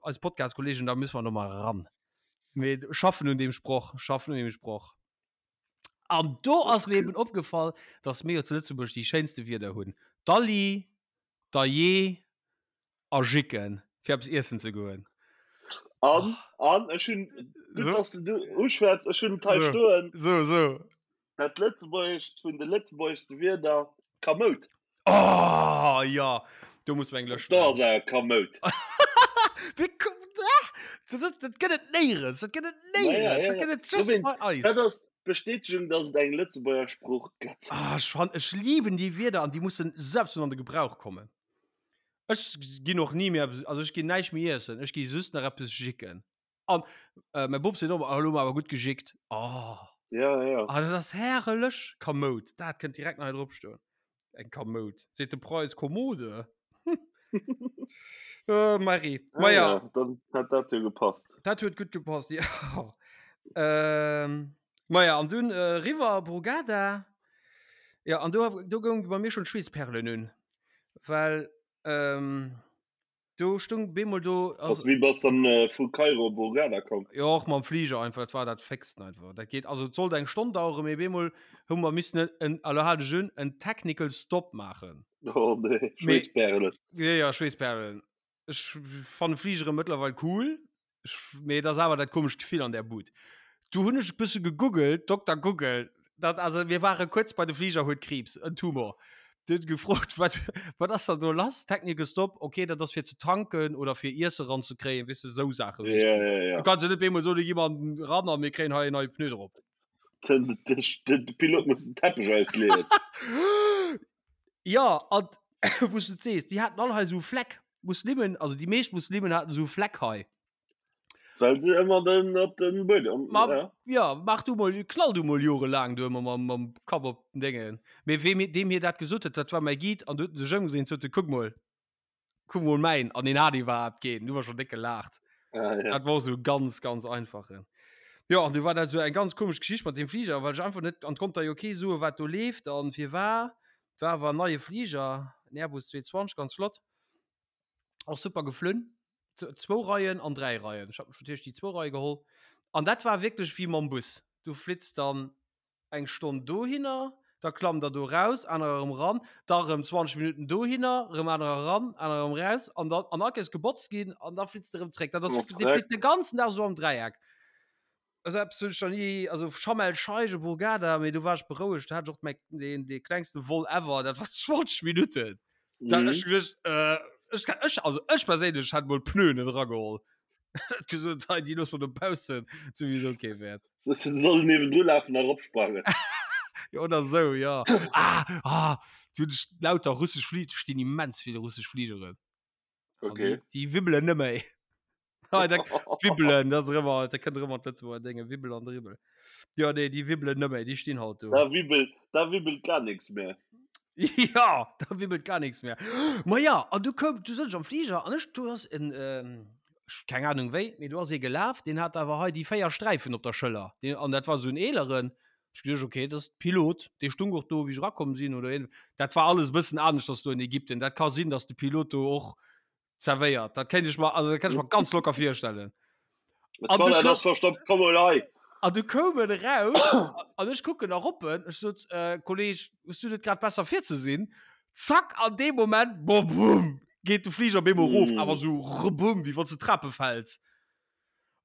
eis Podcast-Kollegen, da müssen wir noch mal ran. Mee schaffen un deem Sproch, schaffen un deem Sproch. An do ass mir eben opgefall, dass mir jo zu Lëtzebuerg déi schéinste Wierder hunn. Dalli, Dajee a Jicken, fir eppes iessen ze goen. An, an ech hunn, gutt, So. dass du du uschwätz, ech hunn et hei So. stoen, So, so. dat Lëtzebuergescht vun de lëtzebuergeschste Wierder, Kamout. Oh, ja, do muss mer eng Lëscht Da ass maachen. awer Kamout. Wéi komm, ah, dat, dat, dat gëtt et néierens, dat gëtt et Ma ja, néierens, ja, dat ja. gëtt et just Dowéinst, bei eis. dat ass d'Bestätegung, dass et eng Lëtzebuerger Sprooch gëtt. Ah, ech fan, ech lieben déi Wierder an déi mussen selbst an de Gebrauch kommen. Ech ginn och ni méi eppes, also ech ginn näischt méi iessen, ech gi just nach eppes jicken. An äh, mäi Bop seet och, elo hu mer awer gutt gejickt. Oh. Ja, ja. Ah, dat ass herrlech. Kamoud, dat kënnt direkt nach hei drop stoen. Eng Kamoud. Seet de Preis Kommode. äh, Marie. Ah, Ma ja. ja, dann hat dat jo gepasst. Dat huet gutt gepasst, ja. Ähm, ma ja, an dunn äh, riwwer Brugada. Ja, an do, do goung bei mir schon d'Schweessperlen un. Well, ähm, Do stung bemol do. Also, wéi bass dann äh, vu Kairo op Hurghada komm? Jo, och mam Flieger einfach, dat war dat fixsten einfach. Dat geet, also et sollt eng Stonn daueren, mee bemol hu mer missen en, elo hal dech un, en Technical Stop maachen. Oh nee, Schweessperlen. Ja, ja, Schweessperlen. Ech fanne Fligere mëttlerweil cool, ech, mee et ass awer dat komescht Gefill an där Bud. Du hunn ech e bësse gegoogelt, Dokter Google, dat, also mir ware kuerz bei de Fliger huet Kriibs, en Tumor. Du huet gefrot, wat, wat ass dann do lass? Technical Stop, okay, dat ass fir ze tanken oder fir Iesse ranzekréien, weess de, esou Saache Ja, meeschtens. ja, ja. Du kanns jo net bemol soen, gi mer ran a mir kréien hei en neie Pneu drop. Den, den, den Pilot muss den Teppech ausleeën. Ja, an wou s du et sees, déi haten all hei esou Fleck. Muslimen, also déi meescht Muslimen haten esou Fleck hei. Well se ëmmer den op den Buedem. Ma, ja. ja, mach du mol, knall du mol jorelaang du ëmmer mam, mam Kapp op den Déngen. Mee wee mir, deem hir dat gesot huet, dat war mäi Guide an du huet en sech ëmgedréint, sot e, kuck mol, kuck mol mäin. An deen hat iwwerhaapt keen, du war schon déck gelaacht. Ah, ja. Dat war sou ganz, ganz einfachen. Jo, an du war dat sou eng ganz komesch Geschicht mat deem Fliger, well ech einfach net, an konnt da jo kee soen, wat do leeft an firwar. War awer en neie Fliger, en Airbus 220, ganz flott. Och super geflunn. Zwou Reien an 3 Reien. Ech hat mech natierlech déi zwou Reie geholl. An dat war wierklech wéi mam Bus. Du flitts dann eng Stonn dohinner, da klammt der do raus, anerer erëm ran, da erëm 20 Minutten dohinner, erëm anerer ran, anerer erëm raus an dann an all Kéiers gebotzt ginn an da flitts de erëm zréck. Dat ass wierklech, dee flitt de ganzen Dag esou am Dräieck. Also eppes hunn ech nach ni, also Sharm el Sheikh op Hurghada, mee do war ech berouegt, do hat ech och mäi, deen, dee klengste Vol ever, dat war 20 Minutten. Da Mhm. ech geduecht, äh, ech, ech, also ech perséinlech hätt mol Pneuen net erageholl. Hätt gesot, hei, déi loosse mer dobaussen, souwisou kee Wäert. Se se sollen niewendru lafen a eropsprangen. Ja, oder sou, ja. Ah, ah, du hunn ech lauter russesch Flie-, do stinn immens vill russesch Fligeren. Okay. Déi, déi wibbelen net méi. Ah, da, wibbelen, dat ass ëmmer, da kënnt ëmmer d'Lëtzebuerger Dénge, Wibbel an Dribbel. Ja, nee, déi wibbelen net méi, déi stinn halt do. Da wibbelt, da wibbelt gar nichts mehr. Ja, da wibbelt gar nichts mehr. Ma ja, an du koum, du sëtz am Flieger an ech, du ass en, ähm, keng Ahnung wéi, mee du ass ee gelaf, deen hat awer hei déi 4 Sträifen op der Schëller. Deen, an dat war esou en eeleren. Ech geduecht, okay, dat ass Pilot, dee stung och do, wéi ech erakomm sinn oder een. Dat war alles e bëssen aneschters do in Ägypten. Dat ka sinn, datt de Pilot do och. Zerwéiert. Dat kéint ech mer, also dat kann ech mer ganz locker virstellen. An du Toilette ass verstoppt, komm mol hei. An du koum en eraus an ech kucken erop en, ech sot, äh, Kolleg, hues du net grad besser fir ze sinn? Zack, an deem Moment, boah, bumm, geet de Fliger op eemol erof, mm. awer sou rebum, wéi wann s de Trape fäls.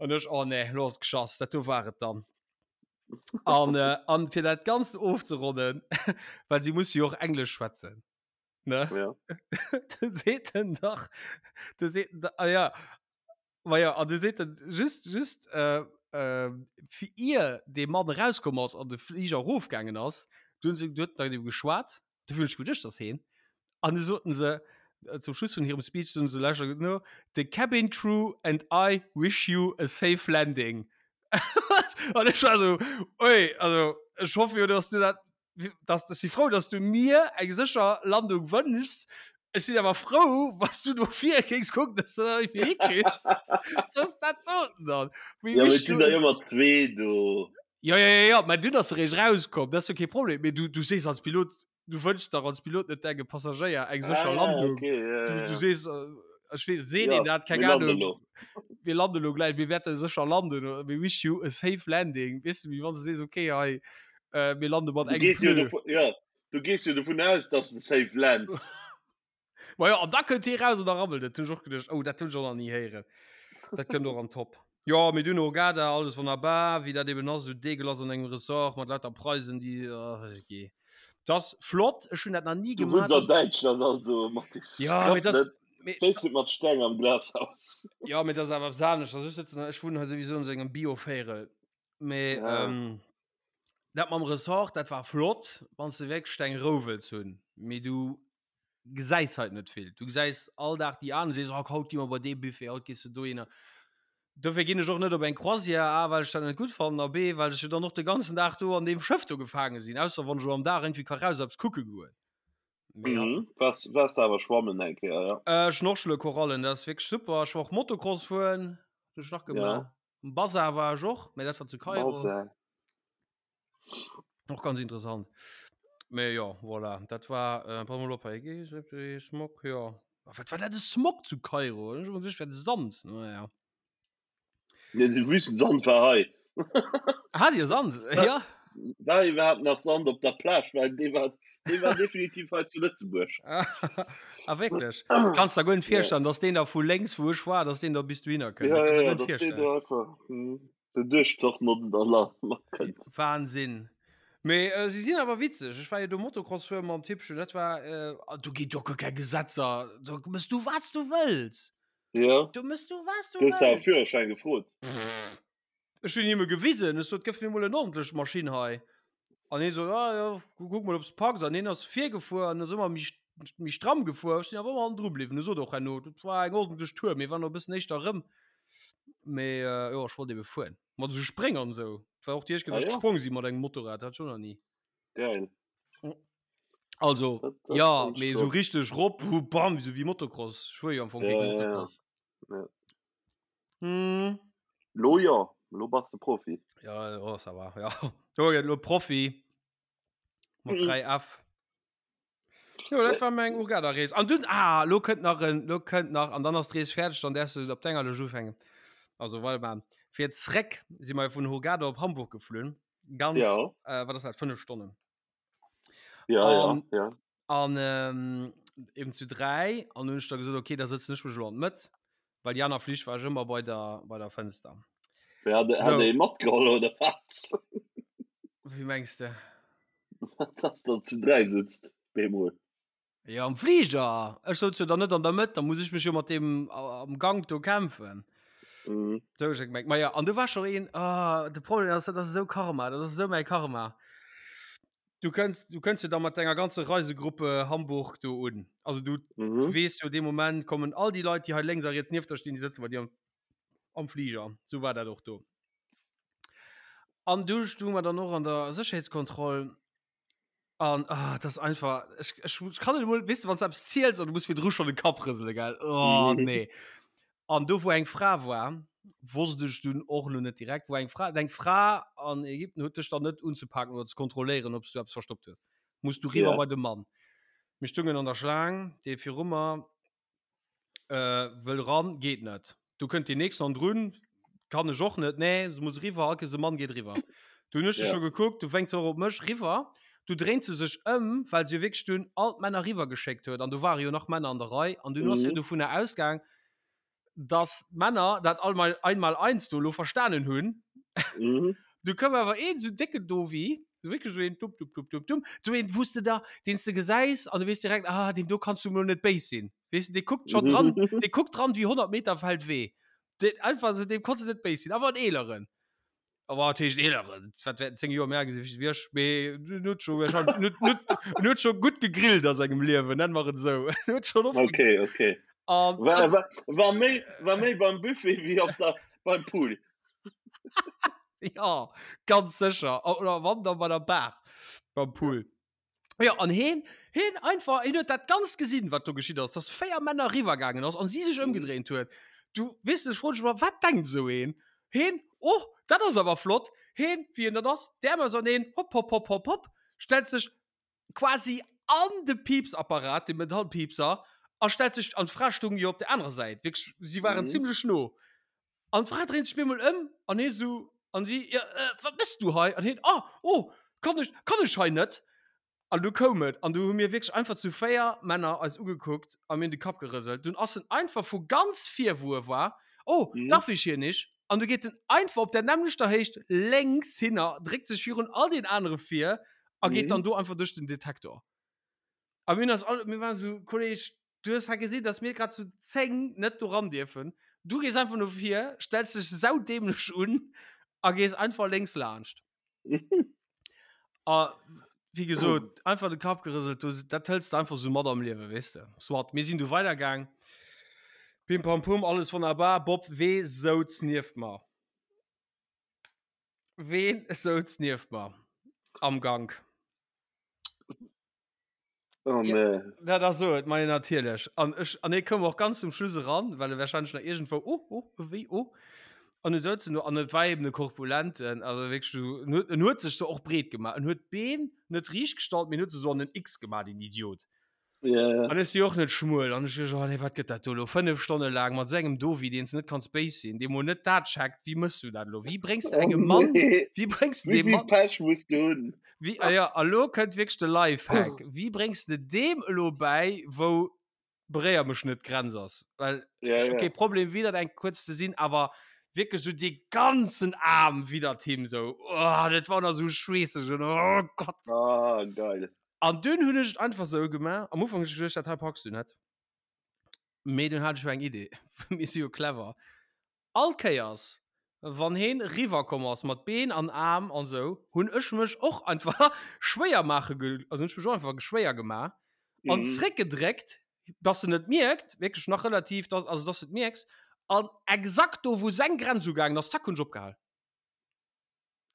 An ech, oh nee, lo ass et geschass, dat do war et dann. An, äh, an fir dat Ganzt ofzeronnen, well si musse jo och Englesch schwätzen. Ne? Ja. Du seet en dach, du seet en, ah ja, ma ja, an du seet en just, just, äh, äh, fir ier dee Mann erauskomm ass an de Fliger erofgaangen ass, du hunn se, du huet nach mat him geschwat, du hunn ech geduecht, dass heen, an du soten se, zum Schluss vun hirem Speech soten se, lauschter gutt no, The cabin crew and I wish you a safe landing. An ech war esou, ui, also ech hoffe jo, dass du dat dass, ech si frou, dass du mir eng sécher Landung wënschs. Ech sinn awer frou, wann s du dofir géings kucken, dass du dat irgendwie hikriss. Soss dat soten dann. We Ja, mee et sinn der ëmmer zwee do. Ja, ja, ja, ja, mä dunn ass se eréischt rauskomm, dat ass jo kee Problem. Mee du, du sees als Pilot, du wënschs dach als Pilot net dengem Passagéier eng sécher Ah, Landung. okay, ja, Du, ja, du ja. sees, ech weess, seet Ja, een dat? Keng mir landen Ahnung. elo. Mir landen elo gläich, mir wäerte sécher landen, we wish you a safe landing. Weess de, wéi wann s du sees, okay, hei, Äh, mir lande mat Du engem gees jo Pneu. dovun, ja, du gees jo dovun aus, dass de safe lands. Ma ja, an da kënnt hie raus an da rabbelt et. Hunn ech och geduecht, oh, dat hunn ech och nach ni héieren. Dat kënnt och an Top. Jo, mir dunn Hurghada, alles wonnerbar, wéi dat eben ass, esou deegelass an engem Ressort mat lauter Preisen, déi, oh, gee. Dat ass flott, ech hunn dat nach ni Du wunns gemaach, an dass. Däitschland also, Mathis. Ja, mee Klapp dat net, mee. stéiss net mat Steng am Glashaus. Ja, mee dat ass awer eppes anescht. Also ech sëtzen, ech wunnen hei souwisou an esou engem Bio-Véierel. Mee Ja. ähm, dat mam Ressort, dat war flott, wann s de wierklech deng Rou wëlls hunn. Mee du gesäis halt net vill. Du gesäis all Dag déi aner, sees, oh, haut gi mer bei dee Buffet, haut gees du dohinner. Dofir ginn ech och net op eng Croisière, A, well ech dat net gutt fannen a B, well ech jo dann och de ganzen Dag do an deem Schëff do gefaange sinn, ausser wann ech elo am Dag irgendwie ka raus eppes kucke goen. Mee ja. Mhm. Waars, waars de awer schwammen eng Kéier, ja? Äh, Schnorchele, Korallen, dat ass wierklech super. Ech war och Motocross fueren, hunn ech nach gemaach. Ja. Am Bazar war ech och, mä dat war zu Kairo. Bazar. Och ganz interessant. Mä jo, voilà, dat war, äh, pass mol op hei, Smog, jo. Wat war dat e Smog zu Kairo? Ech hu geduecht, et wär de Sand, naja. Nee, de Wüstensand war hei. Hat Dir Sand? Ja. War iwwerhaapt nach Sand op der Plage? Well dee war, dee war definitiv hei zu Lëtzebuerg. Ah, wierklech? Kanns der guer net virstellen, dass deen da vu lénks, wou ech war, dass deen da bis dohinner kënnt. Ja, Dat kanns ja, der ja, guer net dass deen virstellen. do einfach hm, den Duerchzoch notzt an la matkënnt. Wahnsinn. Mee äh, si sinn awer witzeg. Ech war jo do Motocross fueren mam Tippchen. Dat war, äh, ah, do geet jo guer keng Gesetzer. Do mëss du, wat s du wëlls. Ja. Do mëss du, wat s du Du hues awer wëlls. Führerschäin gefrot. Ech hunn him e gewisen, ech sot, gëff mir mol en ordentlech Maschinn hei. An hie sot, ah jo, kuck mol, ob s packs. An hien ass virgefuer an ass ëmmer méi, méi stramm gefuer. Ech sinn awer ëmmer hannendru bliwwen. E sot och herno, dat war eng ordentlech Tour, mir waren och e bëssen éischter erëm. Mee jo, ech wollt ebe fueren. Mat esou Spréng an esou. Et war och déi éischt Kéier, Ah datt ech jo? gesprong si mat engem Motorrad, dat hat ech och nach ni. Geil. Also, Dat, dat ja, fand ech mee esou flott. richteg rop, hu, bam, esou wéi Motocross. Ech fuer jo am Fong Ja, kee ja, ja. Motocross. Ja. Hm. Lo jo, lo bass de Profi. Ja, oh, ça va, ja. Jo, ja, lo Profi. Mat Mhm. 3F. Jo, dat war meng Hurghada-Rees. An dunn, ah, lo kënnt nach en, lo kënnt nach, an dann ass d'Rees fäerdeg, dann däerfs du op denger Lëscht ufänken. Also, warte mal. Fir zréck si mer vun Hurghada op Hamburg geflunn. Ganz, Ja. äh, wat ass dat, 5 Stonnen. Ja, ja, An, ja. an ähm, eben zu 3 an hunn ech da gesot, okay, da sëtzen ech mech elo an d'Mëtt, well déi aner Flich war ech ëmmer bei der, bei der Fënster. Wer hat, hat So. ee matgeholl oder wat? Wéi mengs de? Dass der zu 3 sutzt, bemol. Ja, am Flieger. Ech souz jo dann net an der Mëtt, da muss ech mech jo mat deem am Gank do kämpfen. Mhm. Sou ech gemengt. Ma ja, an du war scho een, ah, de Problem ass, dat ass esou Karma, dat ass esou mäi Karma. Du kënns, du kënns jo da mat denger ganze Reisegruppe Hamburg do un. Also du, Mhm. du weess jo, dee Moment kommen all déi Leit, déi hei lénks a riets nieft der stinn, déi sëtze bei dir am, am Flieger. Sou war dat och do. An du stounge mer dann och an der Sécherheetskontroll An ah, das einfach ech, ech, ech kann net emol, weess de, wann s du eppes ziels an du muss virdru schonn de Kapp rësele, gell? Oh nee. An do wou eng Fra war, wosst ech dunn och elo net direkt, wou eng Fra, eng Fra an Ägypten huet dech dann net unzepaken oder ze kontrolléieren, ob s du eppes verstoppt hues. Muss du riwwer Ja. bei de Mann. Mir stungen an der Schlaang, dee viru mer. Äh, wëll ran, geet net. Du kënnt deen nächsten an drun, kann ech och net, nee, se muss riwwer, all Kees e Mann geet riwwer. Du hunn ech ja. scho gekuckt, du wénkt se och op mech riwwer, du dréint se sech ëm, well se jo wierklech dunn all d'Männer riwwer geschéckt huet an do ware jo nach Männer an der Rei an dunn ass se mhm. dovunner ausgaang, dass d'Männer dat all mal einmal eins do lo verstanen hunn. Mhm. Du koum awer een sou décken Dovi, sou wierklech sou een dumm, dumm, dumm, dumm, dumm, sou een, wou s de da, deen s de gesäis an du weess direkt, ah, deem do kanns du mol net béis sinn. Weess de, dee kuckt schonn dran, dee kuckt dran wéi 100 Meter Feldwee. Deen einfach sou, deem konns de net béis sinn, awer en eeleren. Aber wat heescht eeleren? Wat wäerten 10 Joer méi al gesinn wéi ech, mee en huet scho wahrscheinlech, en huet, en huet, en huet scho gutt gegrillt a sengem Liewen, nenne mer et esou. En huet schonn oft Okay, okay. An, War, war, war méi, war méi beim Buffet wéi op der, beim Pool. Ja, ganz sécher. Oder wann dann bei der Bar beim Pool. Ja, an heen, heen einfach, heen huet dat Ganzt gesinn, wat do geschitt ass, dass 4 Männer riwwergaangen ass an si sech ëmgedréint huet. Du, weess de, ech froen dech emol, wat denkt esou een? Heen, oh, dat ass awer flott. Heen, wéi en dat ass, d'Äerm auserneen, hopp, hopp, hopp, hopp, hopp, stellt sech quasi an de Piepsapparat, de Metallpiepser, a stellt sech, an d'Fra stoung jo op der anerer Säit, wierklech, si waren mhm. zimmlech no. An d'Fra dréint sech bemol ëm an hie sou, an si, ja, äh, wat mëss du hei? An hien, ah, oh, kann ech, kann ech hei net? An du koum et, an du hu mir wierklech einfach zu 4 Männer eis ugekuckt a mir hunn de Kapp gerëselt. Dunn ass en einfach vu ganz vir, wou e war, oh, mhm. darf ich hier nicht? An du geet en einfach op der nämmlechter Héicht lénks hinner, dréckt sech virun all den anere vir a geet mhm. dann do einfach duerch den Detektor. A mir ass all, mir waren so, Kolleg, du hues hei gesinn, dass mir grad zu 10 net do ran dierfen. Du gees einfach no vir, stellst dech saudämlech un a gees einfach lénks laanscht. A wéi gesot, einfach de Kapp gerëselt, du, dat hëls de einfach sou mat am Liewen, weess de. Soit, mir sinn du weidergaang. Pim pam pum, alles wonnerbar. Bob, wee souz nieft mer? Ween souz nieft mer am Gank? Oh, ja, nee. Dat ass so, et mei natierlech. An ech an e koum och ganz zum Schluss eran, well e wahrscheinlech nach irgendwou oh, oh, wéi oh. An du souz en do an et war eben e Korpulenten, also wierklech so, en huet, en huet sech so och breet gemaach. En huet d'Been net riicht gestallt, mee en huet se so an en X gemaach, den Idiot. Ja, ja. An ech si och net schmuel an ech oh nee, wat gëtt dat do elo? 5 Stonne laang mat esou engem Dovi, deen s de net kanns béis sinn, dee mol net dat checkt, wéi mëss du dat elo? Wéi bréngs de Oh engem Mann, nee. wéi bréngs de Wéi deem vill Mann Pech muss du hunn? Wéi, ah ja, a lo kënnt wierklech de Lifehack. Wéi bréngs de deem elo bäi, wou beréier mech net d'Grenz ass? Well Ja, ech hu ja. kee Problem widdert eng kuerz ze sinn, awer wierklech sou dee ganzen Aarm widdert him sou. Oh, dat war nach sou schweesseg und oh Gott. Ah, geil. An dunn hunn ech et einfach sou gemaach. Am Ufank hunn ech geduecht, dat hei packs du net. Mee dunn hat ech jo eng Idee. Mir si jo clever. All Kéiers wann heen riwwer komm ass mat Been an Aarm an sou, hunn ech mech och einfach schwéier maache ge, also hunn ech mech och einfach schwéier gemaach an Mhm. zréck gedréckt, dass en et mierkt, wierklech nach relativ, dass, also dass de et mierks, an exakt do wou seng Grenz ugaangen ass, zack hunn ech opgehal.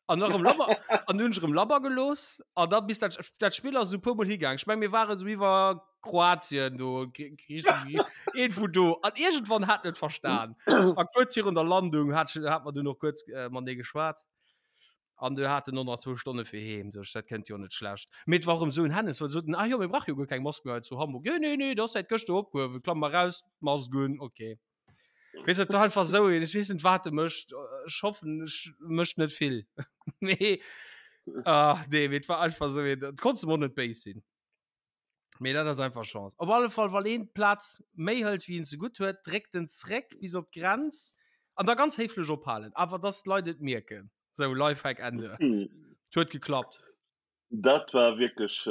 An erëm labber, an hunn ech erëm labber gelooss an da bis dat, dat Spill ass esou e puer mol higaang. Ech meng mir ware sou iwwer Kroatien do, Griichen, een vu do an iergendwann hat en et verstan. A kuerz virun der Landung hat ech, hat mer dunn och kuerz matenee geschwat an du hat en och nach zwou Stonne fir heem. Sou ech, dat kënnt jo net schlecht. Mee et war erëm esou en Hennes, well se soten, ah jo, mir brauche jo guer keng Mask méi hei zu Hamburg. Nee, nee, nee, dat ass säit gëschter opgehuewen, klamm mar raus, Mask un, okay. Weess et war einfach sou een, ech weess net wat e mécht, ech hoffen ech mécht net vill. Mee ah nee, mee et war einfach sou een, et konns em och net béis sinn. Mee dat ass einfach Chance. Op alle Fall wann een d'Plaz méi hëlt wéi een ze gutt huet, dréckt en zréck bis op d'Grenz an da ganz héiflech ophalen, awer dass d'Leit et mierken. Sou, Lifehack Ende. Et huet geklappt. Dat war wierklech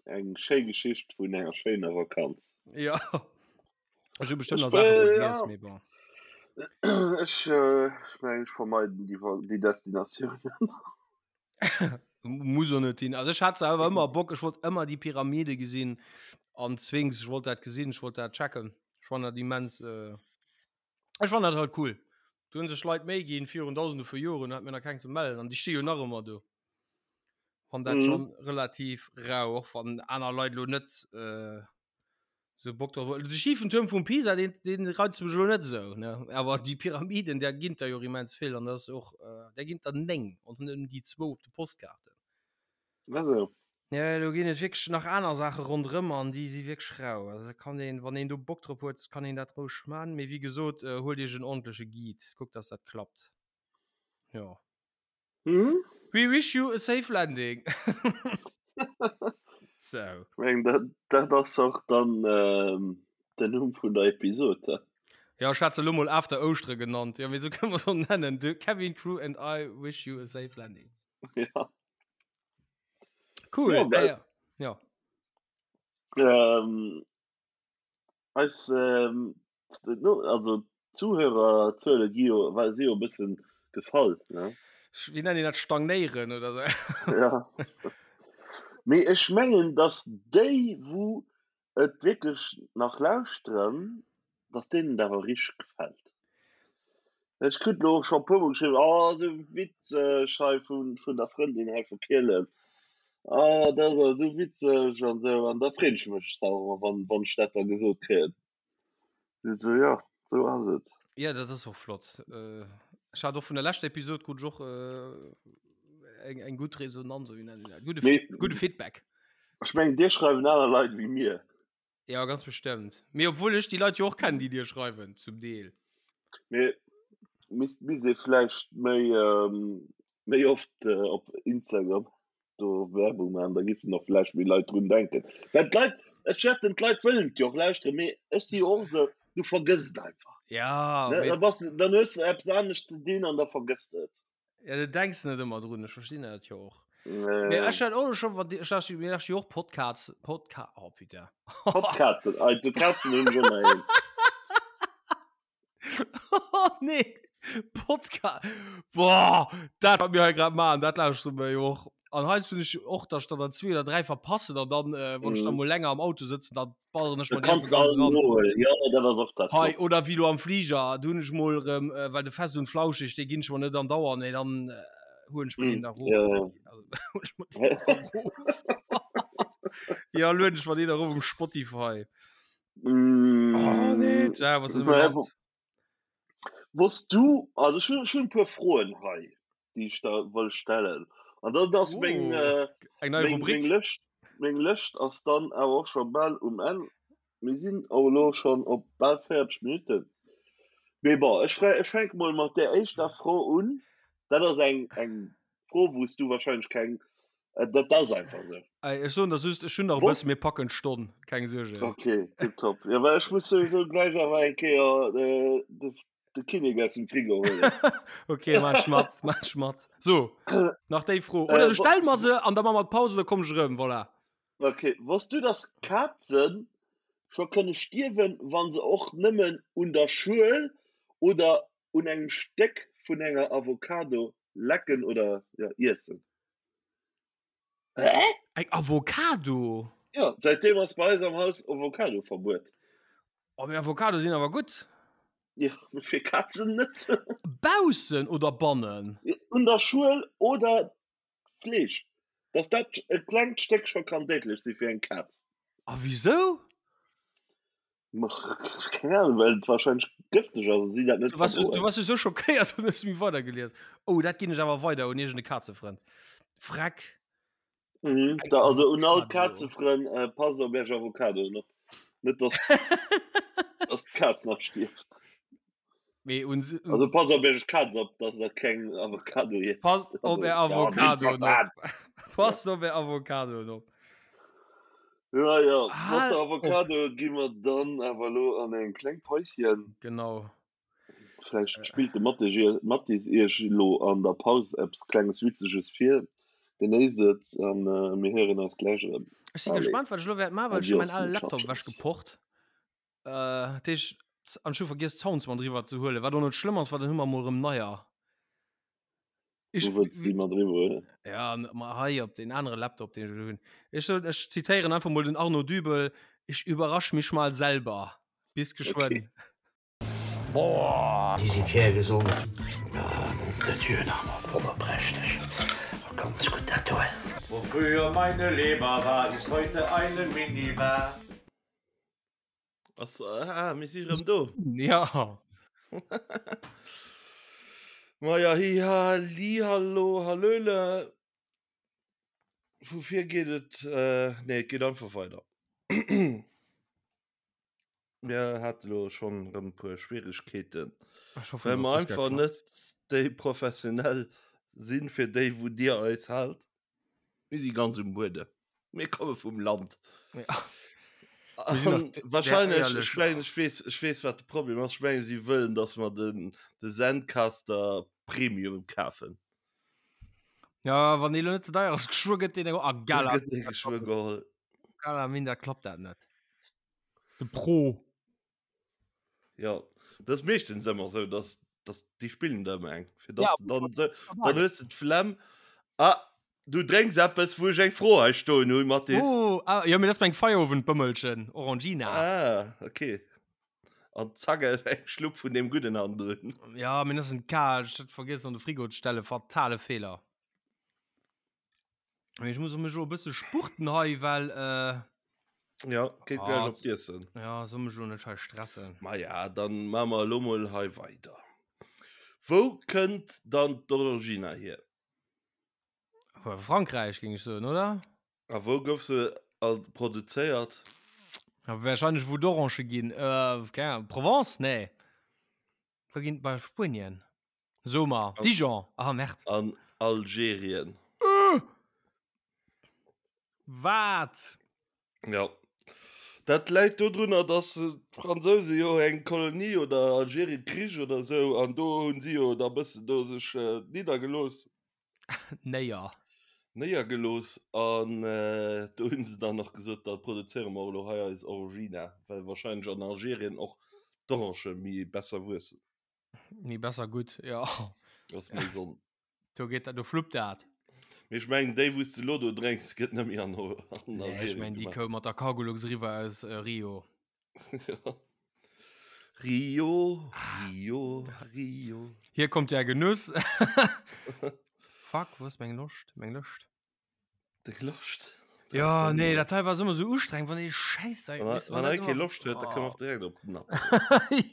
eng schéi Geschicht vun enger schéiner Vakanz. Ja. Ech hu bestëmmt nach Saache vergiess, mee bon. Ech ech mengen, ech vermeiden déi déi Destinatiounen. Muss och net hin. Also ech hat selwer ëmmer Bock, ech wollt ëmmer déi Pyramide gesinn an d'Sphinx, ech wollt dat gesinn, ech wollt dat checken. Ech fannen dat immens. Ech fannen dat halt cool. Do hunn sech Leit Méi ginn virun dausende vu Joren, hat mir nach keng ze mellen an déi sti jo nach ëmmer do. Fann dat mhm. schon relativ rau, och wann aner Leit lo net äh, so Bock drauf. De schiefen Turm vum Pisa, den, den reizt mech lo net so, ne? Awer déi Pyramiden, der ginn der jo immens vill an das och äh, der ginn der 9 an net déi zwou op de Postkaarten. Also. Ja, do ginn et wierklech nach aner Saache ronderëm an déi si wierklech rau. Also da kann een, wann een do Bock drop huet, kann een dat roueg man. Mee wéi gesot, äh, huelt iech en ordentleche Guide, kuckt, dass dat klappt. Ja. Mhm. We wish you a safe landing. So. Ech mengen, dat, dat ass och dann ähm, den Numm vun der Episod. He? Ja, ech hat se elo mol After Ouschtere genannt. Ja, mee sou kënne mer se och nennen. The cabin crew and I wish you a safe landing. Ja. Cool. Ja, well- ja. ja. Ähm, eis, ähm, no, also Zuhörerzuele gi jo, well si jo e bëssen gefall, ne? Wéi nennen déi dat stagnéieren oder sou? Ja. Mee ech mengen, datt déi, wou et wierklech nach lauschteren, dass deenen et awer richteg gefält. Ech krut elo och scho e puermol geschriwwen, oh esou witzeg hei vun, vun der Frëndin hei vu Kielen, oh dat ass awer esou witzeg an esou. An da freen ech mech awer ëmmer, wann, wann ech dat da gesot kréien. Si sou, jo, esou ass et. Ja, dat ass och flott. Ech hat och vun der leschter Episod krut ech och eng, eng gutt Resonanz, oder wéi nennt een dat, gudde, Mee gudde Feedback. ech mengen, dir schreiwen aner Leit ewéi mir. Ja, ganz bestëmmt. Mee obwuel ech déi Leit jo och kennen, déi dir schreiwen, zum Deel. Mee misst misst ee vläicht méi méi oft op Instagram do Werbung maachen, da giffen och vläicht méi Leit drun denken. Well d'Leit, ech wetten d'Leit wëllen et jo och lauschteren, mee ech si jo och esou, du vergëss et einfach. Ja, Ne, mee da bass, dann hues de eppes anescht ze dinn an da vergëss de et. Ja, du denks net ëmmer drun, ech verstinn dat jo och. Mee ech hat och schon, wann ech lauscht, mir lauscht jo och Podcasts, Podca oh putain. Podkazen, also Kazen hunn ech ëmmer een. Oh nee, Podca boah, dat wat mir hei grad maachen, dat lauschtere mir jo och. An heiansdo hunn ech och, dass ech der dann zwee oder dräi verpassen an dann, äh, wann ech dann Mhm. mol länger am Auto sëtzen, dann balleren ech Du mer déi kanns einfach ganz all ran. nohuelen, jo, dat ass och dat Hei, flott. oder wéi lo am Fliger, do hunn ech mol erëm, äh, well de Fest und Flauschig, dee ginn ech mer net andauernd, mee dann äh, huelen ech mer deen Mm, da erof. ja, ja. Also, huelen ech mer deen da erof. Ja, lueden ech mer deen erof um Spotify. Oh nee, Mm, tja, was ist denn los? Wosst du, also ech hunn, ech hunn e puer Froen hei, déi ech der wëll stellen. An dann ass meng, Oh, äh, eng nei meng, Rubrik. meng Lëscht, meng Lëscht ass dann awer och scho bal um Enn. Mir sinn och elo schonn op bal 40 Minutten. Mee bon, ech frä, ech fänke mol mat där éischter Fro un. Dat ass eng, eng Fro, wou s du wahrscheinlech keng, äh, dat ass einfach esou. Ey, ech soen der just, ech hunn nach e bëssen, mir packen d'Stonn, keng Suerge. Okay, tipptopp. Ja, well ech muss souwisou gläich awer eng Kéier äh, de, de Kinnek aus dem Frigo huelen. Okay, mach ech mat, mach ech mat. So, nach déi Fro. Oder Äh, du wo, stell mer se an da maache mer d'Pause, da komm ech erëm, voilà. okay, wosst du, dass Kazen scho kënne stierwen, wa se och nëmmen un der Schuel oder un engem Stéck vun enger Avocado lecken oder ja, iessen? Hä? Eng Avocado? Ja, säitdeem ass bei eis am Haus Avocado-Verbuet. Oh, mee Avocado sinn awer gutt. Ja, mee fir Kazen net. Baussen oder bannen? Un der Schuel oder Fleesch. Dass dat e klengt Stéck scho kann déidlech si fir eng Kaz. A wisou? Keng Ahnung, well et wahrscheinlech gëfteg ass a si dat net Du warst, du verdroen. warst so schockéiert und hues méi weidergelies. Oh, dat ginn ech awer weider un iergende Kazefrënd. Freck. Mhm, Eng da, also un all Avocado. Kazefrënn, äh, passt op iech Avocadoen op. Net dass, dass d'Kaz nach stierft. Mee un, un Also passt op iech Kaz op, dass der keng Avocado iesst. Passt op Also, är ja, Avocadoen nee, op. Passt op är Avocadoen op. Ja, ja, mat Hal der op. Avocado gi mer dann awer elo an eng kleng Päuschen. Genau. Vläicht spillt de Mathis Iech, Mathis Iech elo an der Paus eppes klenges Witzeges vir. Genéisst et an mir héieren eis gläich erëm. Ech si Allez, gespannt, wat ech elo wäert maachen, well ech hu mäin adios ale Laptop muchachos. ewechgeporrt. Äh, dat heescht, an ech hu vergiess d'Sounds mat eriwwer ze huelen, wat och net schlëmm ass, well dann hu mer mol erëm neier. Ech, Wou wëlls du déi mat eriwwer huelen? Ja, ma hei op deen anere Laptop, deen ech elo hunn. Ech soen, ech zitéieren einfach mol den Arnaud Dübel, Ich überrasch mich mal selber. Bis geschwënn. Okay. Boah, déi si kärgesond. Ah, nom de Dieu, nach emol wonnerprächteg. Ganz gutt dat do. Wo früher meine Leber war, ist heute eine Minibar. Ass, ah, mir si rëm do. Ja. Maja, hi, ha, li, hallo, hallöle. Vu vir geet et, nee, et geet einfach weider. Mir hate lo schonn erëm e puer Schwieregkeeten, well mer einfach net déi professionell sinn, fir déi wou Dir eis haalt. Mir si ganz um Buedem. Mir komme vum Land. Ja. Wahrscheinlech, ech mengen, ech weess, ech weess, wat de Problem ass. Ech mengen, si wëllen, dass mer den, de Zencaster Premium kafen. Ja, wann dee lo net ze deier ass, geschwë gëtt deen a Gala. Gëtt dee geschwë geholl. Gala minder klappt dat net. De Pro. Ja, dat ass meeschtens ëmmer esou, dass, dass déi spillen der ëmmer eng. Fir dass ja, dann, so, dann hues du d'Flemm. Ah, du drénks eppes, wou ech eng Fro hei stoen hunn, Mathis. Oh, ah, ja, mee dat ass meng Feierowendbëmmelchen, Orangina. Ah, okay. An zack, eng Schlupp vun deem Gudden hannendrun. Ja, mee dat ass en kal, ech hat vergiess an de Frigo ze stellen, fatale Feeler. Mee ech muss mech elo e bësse spurten hei, well äh, Ja, geet ah, gleich op d'Iessen. Ja, soll mech elo net hei stressen. Ma ja, dann maache mer elo mol hei weider. Wou kënnt dann d'Orangina hier? Frankräich, géing ech soen, oder? A wou gouf se all produzéiert? Ja, wahrscheinlech wou d'Orange ginn. Äh, keng Ahnung, Provence? Nee. Wou ginn bei Spuenien? So mar Dijon. Ah, merde. An Algerien. Äh! Wat? Ja. Dat läit dodrunner, dass d'Fransouse jo eng Kolonie oder Algerien Krich oder sou an do hunn si jo da bëssen do sech niddergelooss. Néier. Néiergelooss an do hunn se dann och gesot, da produzéiere mer elo hei eis Orangina, well wahrscheinlech an Algerien och d'Orange méi besser wuessen. Méi besser gutt, jo. Ass méi Sonn. Do geet dat, do fluppt dat. Mee ech mengen déi wou s de elo do drénks gëtt net méi an Algerien Nee, ech mengen déi koum mat der Cargolux eriwwer aus Rio. Rio, Rio, Rio. Hier kommt der Genuss. Fuck, wo ass meng Loscht? Meng Lëscht? Deng Loscht? Ja, nee, dat hei war ëmmer sou ustrengend, wann ee Schäiss da. Wann, wann hei kee Loscht huet, da kënne mer och direkt op den Napp.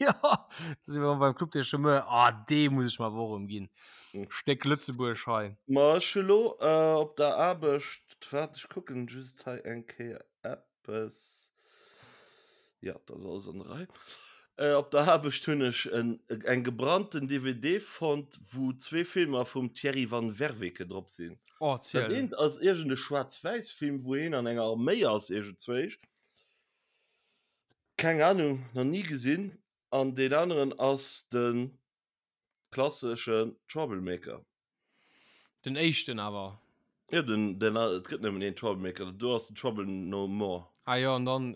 Ja, da si mer beim Club des Chômeurs. Ah, dee muss ech mer awer och erëm ginn. Hm. Stéck Lëtzebuerg hei. Ma ech hu lo äh, op der Aarbecht, waart, ech kucken just hei eng Kéier eppes. Ja, dat ass alles an der Rei. Äh, op der Aarbecht hunn ech en, eng gebrannten DVD fonnt, wou zwee Filmer vum Thierry van Werveke drop sinn. Oh, Dat ziel. eent ass iergend e Schwaarz-Wäiss-Film, wou heen an enger Arméi ass, iergendzwéisch. Keng Ahnung, nach ni gesinn. An deen aneren ass de Klasseschen Troublemaker. Den éischten awer. Jo, den, den, et gëtt nëmmen een Troublemaker, do ass den Trouble No More. Ah jo, an dann,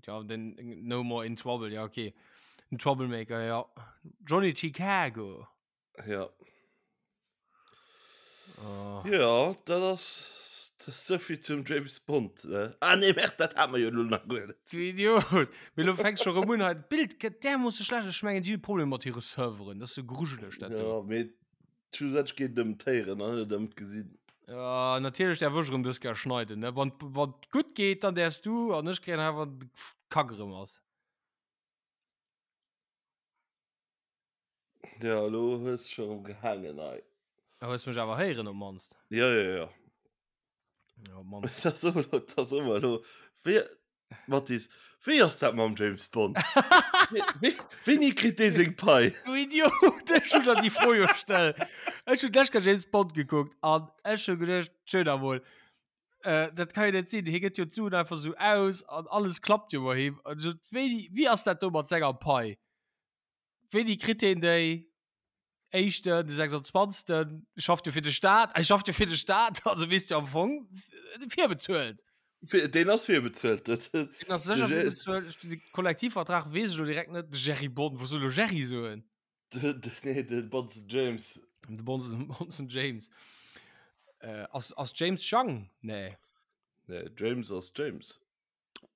ja, den No More in Trouble, ja okay. Den Troublemaker, ja. Johnny Chicago. Ja. Oh. Ja, dat ass, dat ass souvill zum James Bond, ne? Ah nee, merde, dat hate mer jo elo nach guer net. Du Idiot! Mee lo fänks scho rëm un hei. D'Bild gëtt därmoosse schlecht. Ech mengen, déi hu Problemer mat hire Serveren. Dat ass sou grujeleg, dat do. Ja, mee schlussendlech geet et ëm d'Héieren an net ëm d'Gesinn. Ja, natierlech däerf ech erëm dës Kéier schneiden, ne? Wann, wann et gutt geet, dann däerfs du an ech kréien hei, wann de Kack erëm ass. Ja, elo hues de scho rëm gehaangen hei. Da hues mech awer héieren op mannst. Ja, ja, ja. Ja, op mannst. Dat ass ëmmer, dat ass ëmmer elo. Wéi, Mathis, wéi ass dat mam James Bond? Wéini kritt dee seng Pai? Du Idiot, ech hunn der déi Fro jo gestellt. Ech hunn d'lescht Kéier James Bond gekuckt an ech hu geduecht, schön emol, äh, dat kann jo net sinn, hie gëtt jo d'Suen einfach sou aus an alles klappt jo bei him. An ech sot, wéini, wéi ass dat do mat senger Pai? Wéini kritt heen déi? Éischten, de 26. Schafft jo fir de Staat. Hie schafft jo fir de Staat, also weess jo am Fong virbezuelt. Deen ass virbezuelt. Deen ass sécher virbezuelt. De Kollektivvertrag weess ech elo direkt net. De Jerry Bond, wou soll elo Jerry soen? Nee, de Bonzen James. De Bonzen James. Ass, ass James Jang? Nee. Nee, James ass James.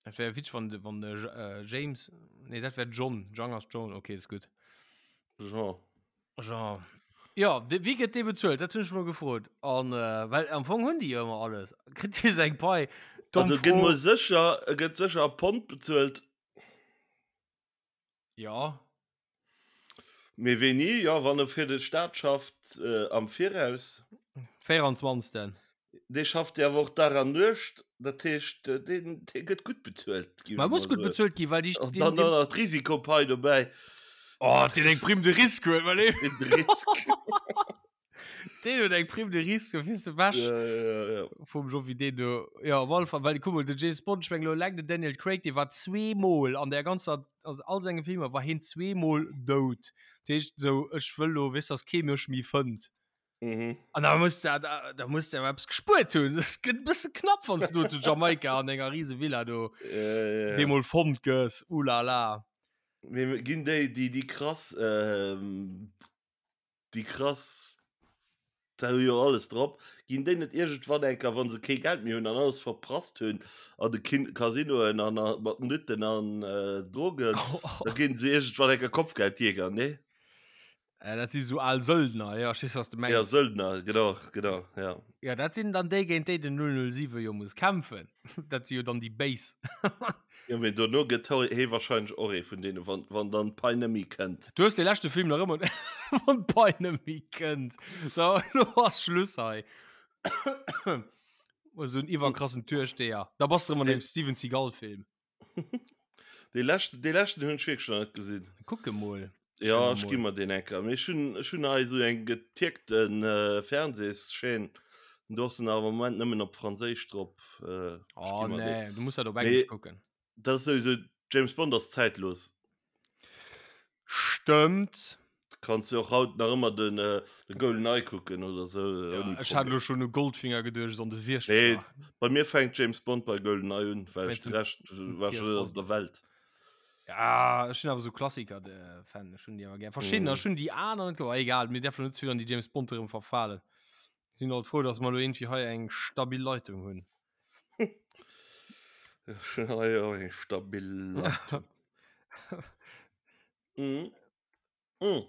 Dat wär witzeg, wann, wann de äh, James. Nee, dat wär John. Jang ass John, okay, ist gut. Jean. Jean. Ja, de, wéi gëtt dee bezuelt? Dat hunn ech mol gefrot. An, äh, well am Fong hunn déi jo ëmmer alles. Kritt hie seng Pai? Domm Also gëtt mol sécher, e gëtt sécher a Pond bezuelt. Ja. Mee wéini? Jo, wann e fir de Staat schafft, äh, am Viraus. 24. Dee schafft jo awer och Dag an Nuecht, dat heescht, deen, dee gëtt gutt bezuelt, géif Ma ech muss mol gutt soen. bezuelt ginn, well déi, An dann och nach d'Risikopai dobäi. Oh, deen eng Prime de risque huet, well dee. Prime de risque. Deen huet eng Prime de risque, fir ze wäsch. Ja, ja, ja. Vum Jovi deen do. Ja, op alle Fall, well kuck mol, den James Bond, ech meng elo eleng den Daniel Craig, dee war zweemol an der ganzer, also all senge Filmer war hien zweemol dout. Dat heescht esou, ech wëll lo, weess, dass kee mech méi fënnt. Mhm. An da muss der, da, da muss der eppes gespuert hunn. Das gëtt e bësse knapp, wann du zu Jamaika an enger riese Villa do Ja, ja, ja. bemol fonnt gëss. Ulala. Mee ginn déi, déi, déi krass, ähm, déi krass, da hu jo alles drop, ginn déi net iergendwann eng Kéier, wa se kee Geld méi hunn an alles verprasst hunn an de Kin Casinoen an a mat Nutten an äh, Drogen, da ginn se iergendwann eng Kéier Kopfgeldjäger, nee? Äh, dat si sou al Söldner, ja, ech weess, was du mengs. Ja, Söldner, genau, genau, ja. Ja, dat sinn dann déi, géint déi den 007 jo muss kämpfen. Dat si jo dann déi Béis. Ja, mee dono gëtt hie wahrscheinlech och ee vun deenen, wann, wann dann d'Pai net méi kënnt. Du hues dee leschte Film nach ëmmer, wann d'Pai net méi kënnt. So, elo ass Schluss hei. Esou en iwwerkrassen Türsteher. Da bass de erëm an deem Steven Seagal-Film. Dee leschten, dee leschten hunn ech wierklech nach net gesinn. Kuck e mol. Ja, ech gi mer deen enker. Mee ech hunn, ech hunn hei esou eng getierkten äh, Fernsehschaîne. Do ass en awer am Moment nëmmen op Franséisch drop. Äh, ech Oh gi mer deen. nee, du muss dat op Englesch Mee kucken. dat ass souwisou, James Bond ass zäitlos. Stëmmt. Kanns du och haut nach ëmmer den, äh, de GoldenEye kucken oder sou, Ja, ouni ech hat Problem. elo schonn u Goldfinger geduecht an de Nee, Siechzeger. bei mir fänkt James Bond bei GoldenEye un, well ech Wéinst de dem Rescht war Pierce schon net op Brosnan. der Welt. Ja, ech hunn awer sou Klassiker de Fan, ech hunn déi awer gär. Verschiddener, Mhm. ech hunn déi aner net ge-, egal, mir däerfen net ze vill an déi James Bond erëm verfalen. Sinn alt frou, dass mer elo iergendwéi hei eng stabil Leitung hunn. Ech hunn hei och eng stabil Leitung. Mhm. Mm.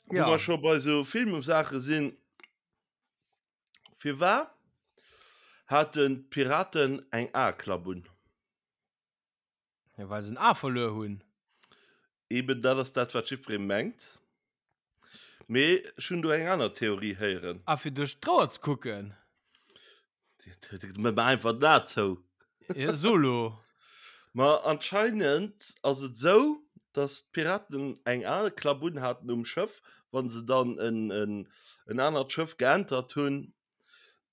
Wo Ja. mer scho bei sou Filmsaache sinn, Firwat haten d'Piraten eng Aeklapp un? Ja, well se en A verluer hunn. Eben dat ass dat, wat jiddweree mengt. Mee ech hunn do eng aner Theorie héieren. Ah, fir duerch d'Rouer ze kucken? Mat einfach den A zou. Ja, solo. Ma anscheinend ass et sou, dass d'Piraten eng al Klapp un haten um Schëff, wann se dann en, en, en anert Schëff geentert hunn,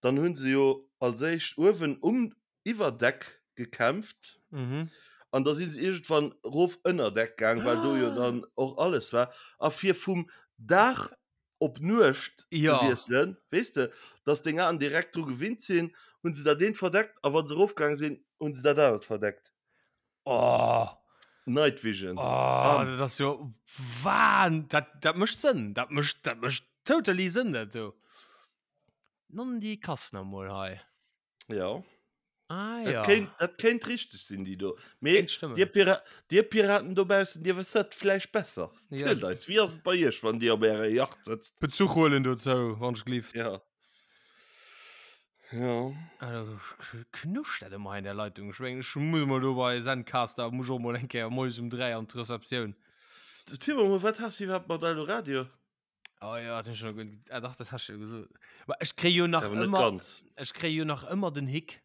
dann hunn se jo als éischt uewen um Iwwerdeck gekämpft. Mhm. An da si se iergendwann rof ënner Deck gaang, well do jo dann och alles war. A fir vum Dag op Nuecht ja. ze wiesselen, weess de, dass deng Aen direkt dru gewinnt sinn, hunn se dat eent verdeckt a wa se erofgaange sinn, hunn se dat anert verdeckt. Oh. Night Vision. Oh, ah. dat ass jo wahn. Dat, dat mécht Sënn. Dat mécht, dat mécht totally Sënn, dat do. Non déi Kass nach mol hei. Ja. Ah, dat ja. Kéint, dat kéint richteg sinn, déi do. Mee Kéint dir, Pira dir Piraten dobaussen, dir wësst dat vläicht besser. Ja. Zielt eis, wéi ass et bei iech, wann dir op ärer Yacht sëtzt? Bezuch huelen dozou, wann ech glift. Ja. Ja. Also, knuscht dat ëmmer hei in der Leitung. Ech mengen, ech muss mol do bei Zencaster, muss ech och mol eng Kéier moies um 3 an d'Receptioun. Ziel mer mol, wat has du iwwerhaapt mat Eldoradio? Oh ja, dat hun ech schon ge- ah, dach, dat hast du jo gesot. Ma ech kréie jo nach Awer net ëmmer, ganz. ech kréie jo nach ëmmer den Hick,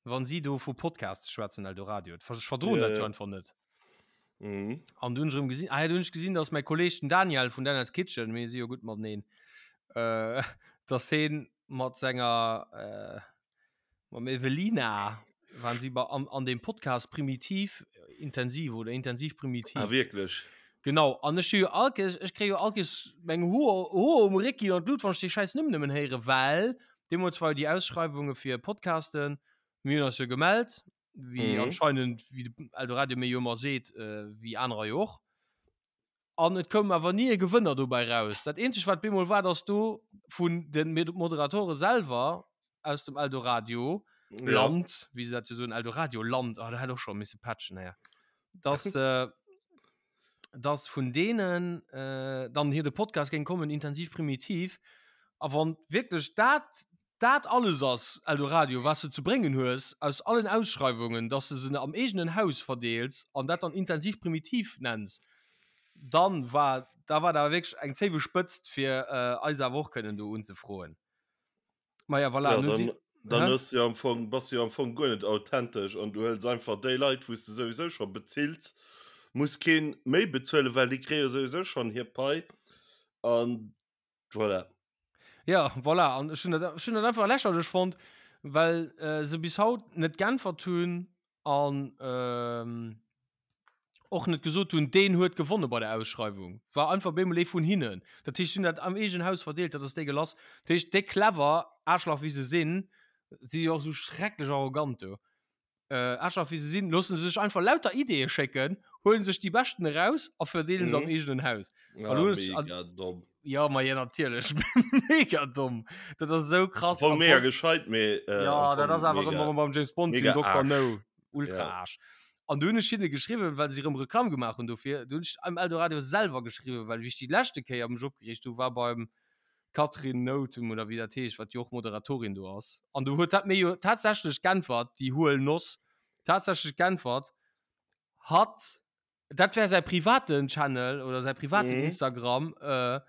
wann si do vu Podcasts schwätzen, Eldoradio. Ech verdroen Ja, dat jo ja. einfach net. Mhm. An du hunn ech erëm gesinn, ah ja, du hunn ech gesinn, dass mäi Kolleg den Daniel vun Daniel's Kitchen, mir si jo gutt mateneen, äh, dass heen mat senger, äh, Mam Evelina waren sie bei, an, an dem Podcast Primitiv Intensiv oder Intensiv Primitiv. Ah, wierklech? Genau, an ech hu jo all Kees, ech kréie jo all Kees meng Hoer, Hoer um Réck ginn an d'Lut, wann ech déi schäiss Numm nëmmen héieren, well deemools war jo déi Ausschreiwunge fir Podcasten, mir hunn eis jo gemellt, wéi Mhm. anscheinend, wéi de Eldoradio mir jo ëmmer seet, äh, wéi anerer jo och. An et koum awer ni e Gewënner dobäi raus. Dat eenzegt, wat bemol war, dass do vun de Moderatore selwer aus dem Eldoradio Land, ja. wéi se dat jo soen, Eldoradio Land, ah, da hätt och scho misse patchen, naja. Dass, äh, dass vun deenen äh, dann hier de Podcast géing kommen, intensiv primitiv. A wann wierklech dat dat alles ass, Eldoradio, was de ze bréngen hues aus allen Ausschreiwungen, dass de se am eegenen Haus verdeels an dat dann intensiv primitiv nenns, dann war da war da wierklech eng zéiwe Spëtzt fir äh, eis awer och kënnen do unzefroen. Ma ja, voilà, Ja, nun dann, si dann Hä? hues du jo am Fong, bass du jo am Fong guer net authentesch an du hëls einfach déi Leit, wou s de souwisou scho bezills, muss keen méi bezuelen, well déi kréie jo souwisou schonn hir Pai an voilà. Ja, voilà, an ech hunn dat, ech hunn dat einfach lächerlech fonnt, well äh, se bis haut net geäntwert hunn an ähm, och net gesot hunn, deen huet gewonne bei der Ausschreiwung. War einfach bemol ee vun hinnen. Dat heescht, si hunn dat am eegenen Haus verdeelt, dat ass dégueulasse. Dat heescht, déi clever Aarschlach wéi se sinn, si jo och esou schrecklech arrogant do, äh, Aarschlach wéi se sinn, loosse se sech einfach lauter Ideeë schécken, huele sech déi beschten eraus a verdeele se am Mhm. eegenen Haus. Ah, An hunn ech- an- mega domm. Ja, ma ja, natierlech. Mega domm. Dat ass esou krass. Am Fong Am mega Fong- gescheit, mee äh, Ja, am dat Fong ass awer mega- ëmmer beim James Bond mega sinn Dr. Aarsch. No. Ultra Ja. Aarsch. An du hunn ech hinne geschriwwen, well se erëm Reklamm gemaach hunn dofir. Du hunn ech am Eldoradio selwer geschriwwen, well wéi ech déi leschte Kéier mech opgereegt hu war beim Catherine Nothum oder wéi dat heescht, wat jo och Moderatorin do ass. An du huet dat mir jo tatsächlech g'äntwert, déi huel Noss, tatsächlech g'äntwert, hatt dat wär säi privaten Channel oder säi privaten Mhm. Instagram, äh,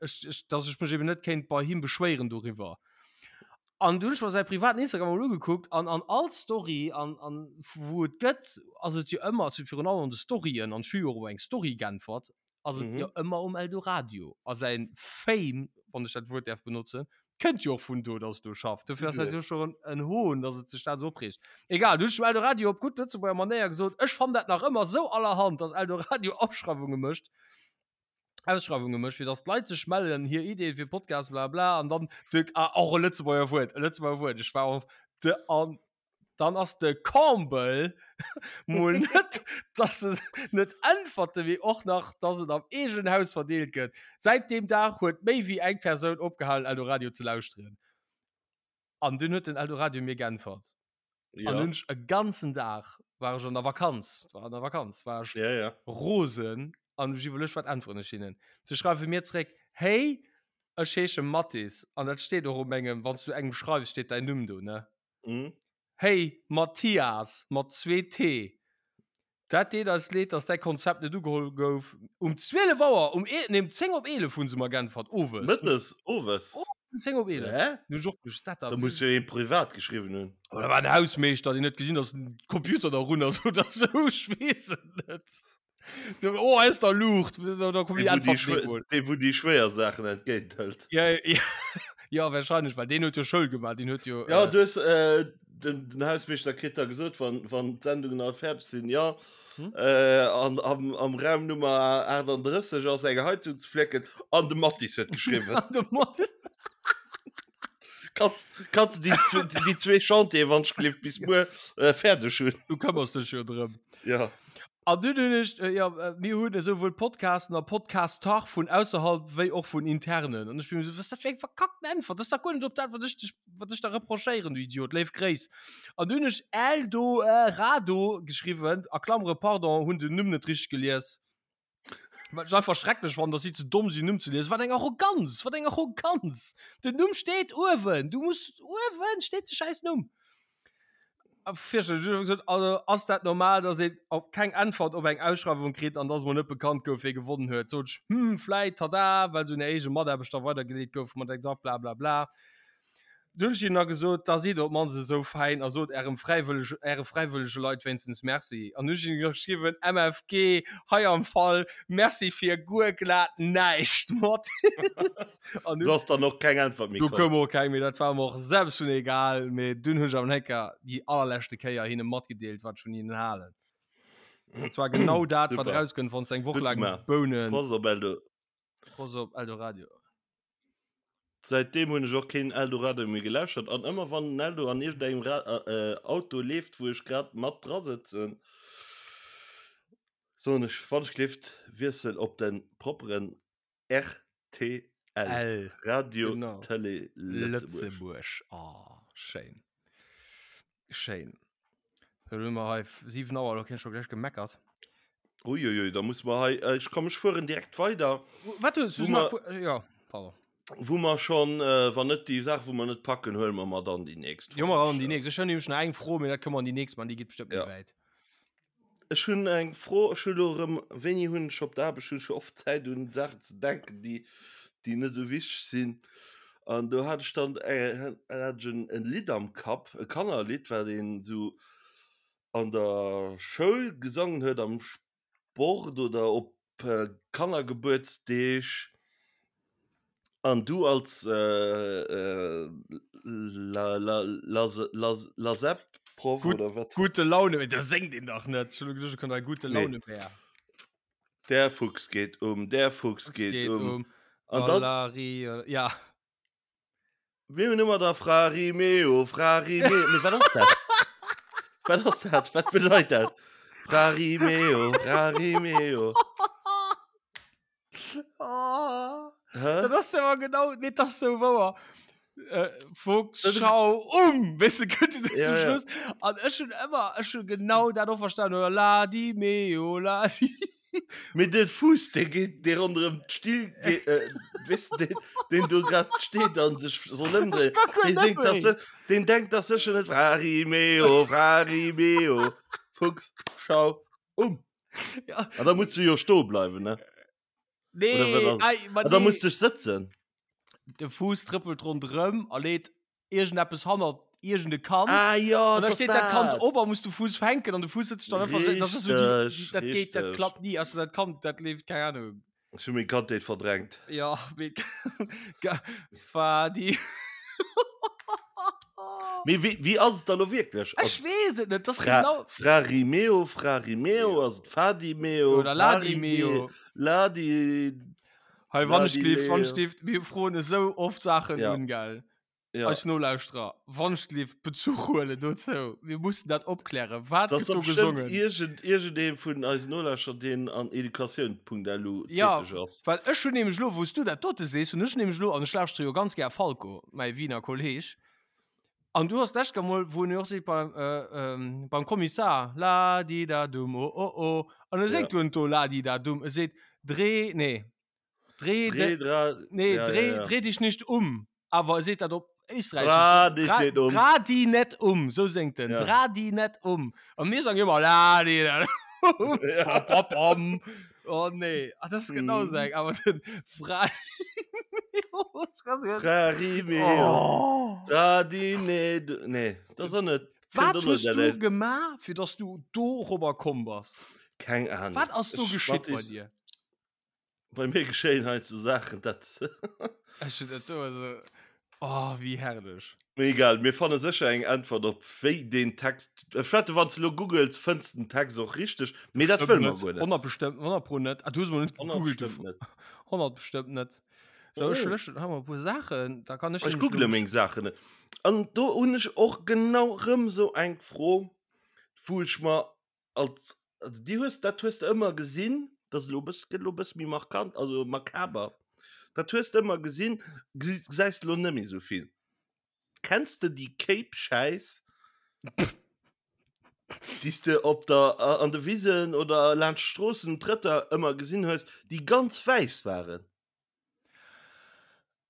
ech, ech, dass ech mech eben net kéint bei him beschwéieren doriwwer. An du hunn ech mer säi privaten Instagram mol ugekuckt an an all Story an, an wou et gëtt, ass et jo ëmmer, also virun allem an de Storyen, an ech hu jo och op eng Story geäntwert, ass et Mhm. jo ëmmer um Eldoradio. A säin Fame, wann ech dat Wuert däerf benotzen, kënnt jo och vun do, dass do schafft. Dofir ass dat jo schon en Hohn, dass et sech dat esou opreegt. Egal, du hunn ech dem Eldoradio op gutt Lëtzebuerger Manéier gesot, ech fannen dat nach ëmmer esou allerhand, dass Eldoradio Ausschreiwunge mécht, Ausschreiwunge mécht, fir dass d'Leit sech mellen, hir Ideeën fir Podcasts, bla bla, an dann de, ah, och e Lëtzebuerger Wuert, e Lëtzebuerger Wuert, ech war och de, an dann ass de Comble mol net, dass se net äntwerte mee och nach, dass et am eegenen Haus verdeelt gëtt. Säit deem Dag huet méi wéi eng Persoun opgehalen Eldoradio ze lauschteren. An dunn huet den Eldoradio mir geäntwert. Ja. An hunn ech e ganzen Dag, war ech an der Vakanz, war an der Vakanz, war ech ja, ja. rosen an ech iwwerluecht, wat äntweren ech hinnen. Se schreiwe mir zréck, Hey, ech heesche Mathis an dat steet och op mengem, wann s du engem schreifs, steet däin Numm do, ne? Mhm. Hey Mathias, mat zwee T, dat deet eis leed, dass däi Konzept net ugeholl gouf. Um 12 Auer, um ee, nee, um 10 op 11 hu se mer geäntwert, owes. Mëttes, owes? Um 10 op 11. Hä? Du hues och gewusst, dat Da muss jo een privat geschriwwen hunn. Oder war en Hausmeeschter, deen huet gesinn, dass den Computer da run ass oder sou, ech weess et net. Du, oh, hei ass da Luucht, da komm Dee, déi wou déi Äntwert schwéier, mol. dee, wou déi schwéier Saachen entgéint hëlt. Ja, ja, ja, wahrscheinlech, well deen huet jo Schoul gemaach, deen huet jo. Ja, äh, du hues, äh, den, den Hausmeeschter kritt da gesot, wann, wann d'Sendungen all fäerdeg sinn, ja, Hm? äh, an, am, am Raum Nummer 38 ass eng Heizung ze flécken, an de Mathis huet geschriwwen. An de Mathis. Kanns, kanns du déi, déi, déi zwee Chantier, wann ech gelift, bis muer äh, fäerdeg hunn? Du këmmers dech jo drëm. Ja. An dunn hunn ech, äh, ja, äh, mir hunn esouwuel Podcasten a Podcaster vun ausserhalb wéi och vun internen. An ech bin esou, was dat fir eng verkackten Äntwert? Dat ass dach guer net op dat, wat ech dech, wat ech der reprochéieren, du Idiot. Léif Gréiss. An dunn hunn ech Eldo, äh, Rado geschriwwen, a Klammere, pardon, hunn den Numm net richteg gelies. Wat ech einfach schrecklech fannen, dass si ze domm sinn, Numm ze liesen. Wat eng Arroganz! Wat eng Arroganz! Den Numm steet uewen! Du muss, uewen steet de schäiss Numm! A fierchterlech. Ech hu gesot, also ass dat normal, dass een op keng Äntwert op eng Ausschreiwung kritt an dass mol net bekannt gouf, wee gewonnen huet? Sot ech, hm, vläit, tada, well se un hir eege Mataarbechter weidergeleet gouf mat exakt bla bla bla. Dunn hunn ech hinnen da gesot, da sidd op d'mannst esou fäin a sot ärem fräiwëllege, äre fräiwëllege Leit wéinstens Merci. An hunn ech hinnen geschriwwen, MFG, hei am Fall, Merci fir guer glat näischt, Mathis. An Du ass dann och keng Äntwert méi Du komm. koum och keng méi, dat war mer och selbst vun egal. Mee dunn hunn ech awer nach eng Kéier, déi allerleschte Kéier, hinne matgedeelt, wat ech vun hinnen halen. An zwar genau dat, wat Super. erauskënnt, wann s de eng Woch Gutt laang gemaach. Bounen. Prost op Eldo. Prost op Eldoradio. Säitdeem hunn ech och keen Eldoradio méi gelauschtert an ëmmer wann den Eldo an iergendengem Ra Auto leeft wou ech grad mat dra sëtzen, soen ech wann ech gelift wiessel op de propperen rtl, L, Radio genau. Télé Lëtzebuerg. Lëtzebuerg, oh schéin. Schéin. Da hunn mer hei 7 Auer, da kinn ech scho gläich gemeckert. Uiuiui, da muss mer hei, äh, ech komm, ech fueren direkt weider. Wat hues du Wo nach? mer- Ja, pardon. Wou mer schon, äh, wann net déi Saach, wou mer net packen, huele mer mer dann déi nächst. Jo, mer an déi nächst. Ech hunn nämlech nach eng Fro, mee dat kënne mer an déi nächst man, déi geet bestëmmt net Ja. wäit. Ech hunn eng Fro, ech hunn elo erëm, wéini hunn ech op der Aarbecht, hunn ech jo oft Zäit un Saachen ze denken, déi, déi net esou wichteg sinn. An do hat ech dann äh, hat ech en, en Lidd am Kapp, e Kannerlidd, wat een esou an der Schoul gesongen huet, am Sport oder op Kannergebuertsdeeg. An du als äh, la, la, la, la, Lasep-Proff oder wat? Gute Laune, mee da séngt een dach net. Ech hunn elo geduecht, et kënnt hei Gute Nee. Laune Bär. Der Fuchs geht um, der Fuchs Fuchs geht geht um. um. An dann Galari, ja. Mir hunn ëmmer da Frarimeo, Frarimeo. Mee wat ass dat? Wat ass dat? Wat bedeit dat? Frarimeo, Frarimeo. Oh. Hä? Dat ass awer genau, nee, dat ass sou wouer. Äh, Fuchs, schau um! Weißt du, könnt ihr das Ja, zum ja. Schluss? An ech hun ëmmer, ech hun genau dat och verstanden. Oder la di meo, la di. Mee de Fuuss, dee geet, dee ronderëm d'Still geet, äh, weess de, deen, deen do grad steet an sech soll ëmdréien, Ech kann guer dee net séngt das, méi. deen denkt das sécher net, Frarimeo, Frarimeo, Fuchs, schau um. Ja. An da muss du jo stoe bleiwen, ne? Nee, Oder wat ass- ei, ma An da nee. muss du sëtzen. De Fuuss trëppelt ronderëm a leet iergendeppes hannert iergende Kand. Ah jo, An da dat steet dat Kand dat. op a muss de Fuuss fänken an de Fuuss sëtzt dann einfach so, das ist so die, Richteg, dat geht, dat richteg. klappt nie. Also dat Kand, dat leeft, keine Ahnung. Ech hu meng Kandheet verdrängt. Ja, mee ga- Fadi. Mee wéi, wéi ass et da lo wierklech? Ass Ech weess et net, das Fra, genau. Frarimeo, Frarimeo, ass et Fadimeo, Oder Ladimeo. Ladi, Hei, wann ech gelift, wann ech Ladileo. gelift, mir froen esou oft Saachen Ja. un, gell? Ja. Eis Nolauschterer, wann ech gelift, Bezuch huelen dozou. Mir mussen dat opklären. Wat Das gëtt do ass bestimmt gesongen? irgend, irgendee vun eisen Nolauschterer, deen an educatioun.lu Ja, täteg ass. well ech hunn nämlech elo, wou s du dat dote sees, hunn ech nämlech elo, an ech lauschtere jo ganz gär Falco, mäi Wiener Kolleg, an du has d'lescht Kéier mol, wou en jo och seet beim, äh, ähm, beim Kommissar, la di da dum, oh oh oh, an e Ja. séngt do net do la di da dum, e seet dreh, nee, dreh, Dreh, de, dra, nee, ja, dreh, ja, ja. dreh dich nicht um, awer e seet dat op Österreichisch. Dra dich Dra, net um. dra di net um, sou séngt en, Ja. dra di net um. An mir sangen ëmmer la di da dum, Ja. pam, pam, pam. Oh nee, ah, das ist genau Mhm. seng, awer den Fra Frarimeo, Oh. dra di net, nee, dat ass och net. Wat Kënnt och hues net du aus. gemaach, fir dass du dorobber komm bass? Keng Ahnung. Wat ass do Ech, geschitt bei Mathis, dir? Bei mir geschéien hei so Saachen, dat. Ech hunn dat do also. Oh, wéi herrlech. Mee egal, mir fanne sécher eng Äntwert op wéi deen Text. Ech wette wann s de lo googles, fënns de den Text och richteg, mee dat Bestëmmt wëlle mer net. guer net. 100 bestëmmt, 100 pro net. Ah, du hues mol net gegoogelt. 100 bestëmmt net. 100 bestëmmt net. So, ech Oh. löschen hei mol e puer Saachen, da kann ech Ech nämlech google lo. meng Saachen net. An do hunn ech och genau rëm sou eng Fro, wou ech mer als also déi hues dat hues de ëmmer gesinn, dat ass elo e bëss gëtt elo e bësse méi markant, also makaber, dat hues de ëmmer gesinn, gesi gesäis de elo net méi esou vill. Kenns de déi Kéip-Schäiss, déi s de op der an de Wisen oder laanscht d'Stroossen, Trëtter ëmmer gesinn hues, déi ganz wäiss waren?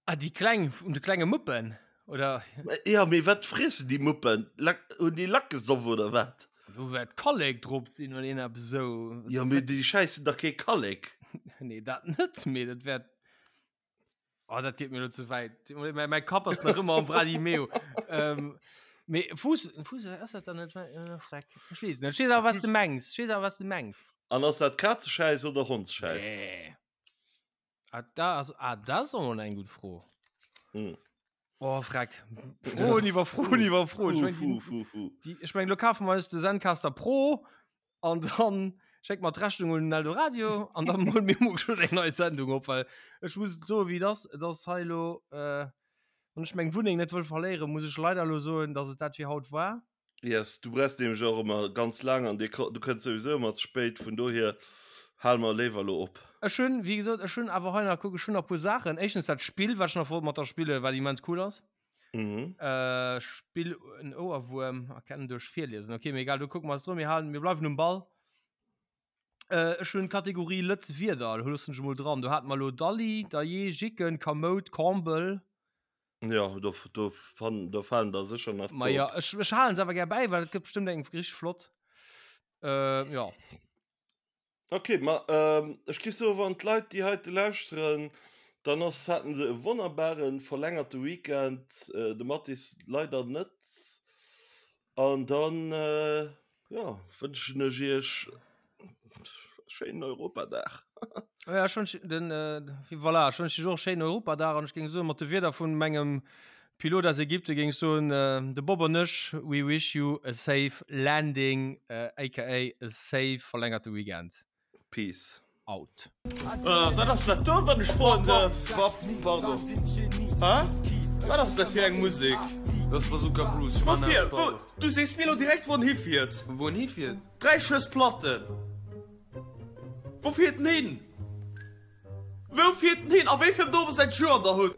Ah, déi kleng, vun de klenge Muppen, oder? Ja, mee wat friessen déi Muppen? Lack, hunn déi Lack gesoff oder wat? Do wäert Kallek drop sinn oder een eppes esou. Ja, mee déi schäissen dach kee Kallek. Nee, dat net, mee dat wäert. Oh, dat geet mir elo ze wäit. Mäi, mäi Kapp ass nach ëmmer am Vladimeo. ähm, mee Fuuss, Fuuss, ass dat dann net? Äh, Freck. Ech weess net. Ech weess awer, wat s de mengs. Ech weess awer, wat s de mengs. An ass dat Kazeschäiss oder Hondsschäiss? Nee. Ah, da, also, ah, das ist auch mal eng gut Fro. Mm. Oh, Freck. Froen iwwer Froen iwwer Froen. Ich mein, Fu, die, fu, fu. die, ich mein, lo kaufen wir uns de Zencaster Pro an dann schenkt mal d'Rechnung un den Eldoradio an dann holen mir morgen schon eng neue Sendung op, weil ich muss so wie das, das hei lo, äh, wann ich meng Wunneng net wëll verléieren, muss ich leider lo soen, dass et dat fir haut war. Yes, du brauchst nämlech och ëmmer ganz laang an dir, du kënns souwisou ëmmer ze spéit, vun dohier hale mer léiwer elo op. Ech hunn, wéi gesot, ech hunn awer hei nach, kuck, ech hunn nach e puer Saachen. Éischtens dat Spill, wat ech nach wollt mat der spillen, wat immens cool ass. Mhm. Äh, Spill en Ouerwuerm erkennen duerch Virliesen. Okay, mee egal, do kucke mer eis dru. Mir halen, mir bleiwen um Ball. Äh, ech hunn d'Kategorie Lëtz Wierder, do loossen ech emol dran. Do hate mer elo Dalli, Dajee, Jicken, Kamout, Kombel. Ja, do, do, fan, do falen der sécher nach Ma ja, ech, ech halen se awer gär bäi, well et gëtt bestëmmt eng richteg flott. Äh, ja. Okay, ma ähm, ech géif soen, wann d'Leit, déi heite lauschteren, Dann ass, haten se e wonnerbare verlängerte Weekend, de Mathis leider net. An dann, jo, wënschen ech iech e schéinen Europadag. Ja, ech wënschen den, voilà, ech wënschen iech och e schéinen Europadag an ech géing soen, mat de Wierder vun mengem Pilot aus Ägypten géing ech soen, de Bob an ech, we wish you a safe landing, aka a safe verlängerte Weekend. Peace. Out. Wat ass dat do, wann ech froen dierf? Pardon. Hä? Wat ass dat fir eng Musek? Dat ass Bazooka Bruce. Ech man Woufir? Wou? Du sees mir elo direkt, wou en hifiert. Wou en hifiert? 3 Schëss Platten. Wou fiert en hin? Wou fiert en hin? A wéi fir Dorf ass dat Joer an der Hutt?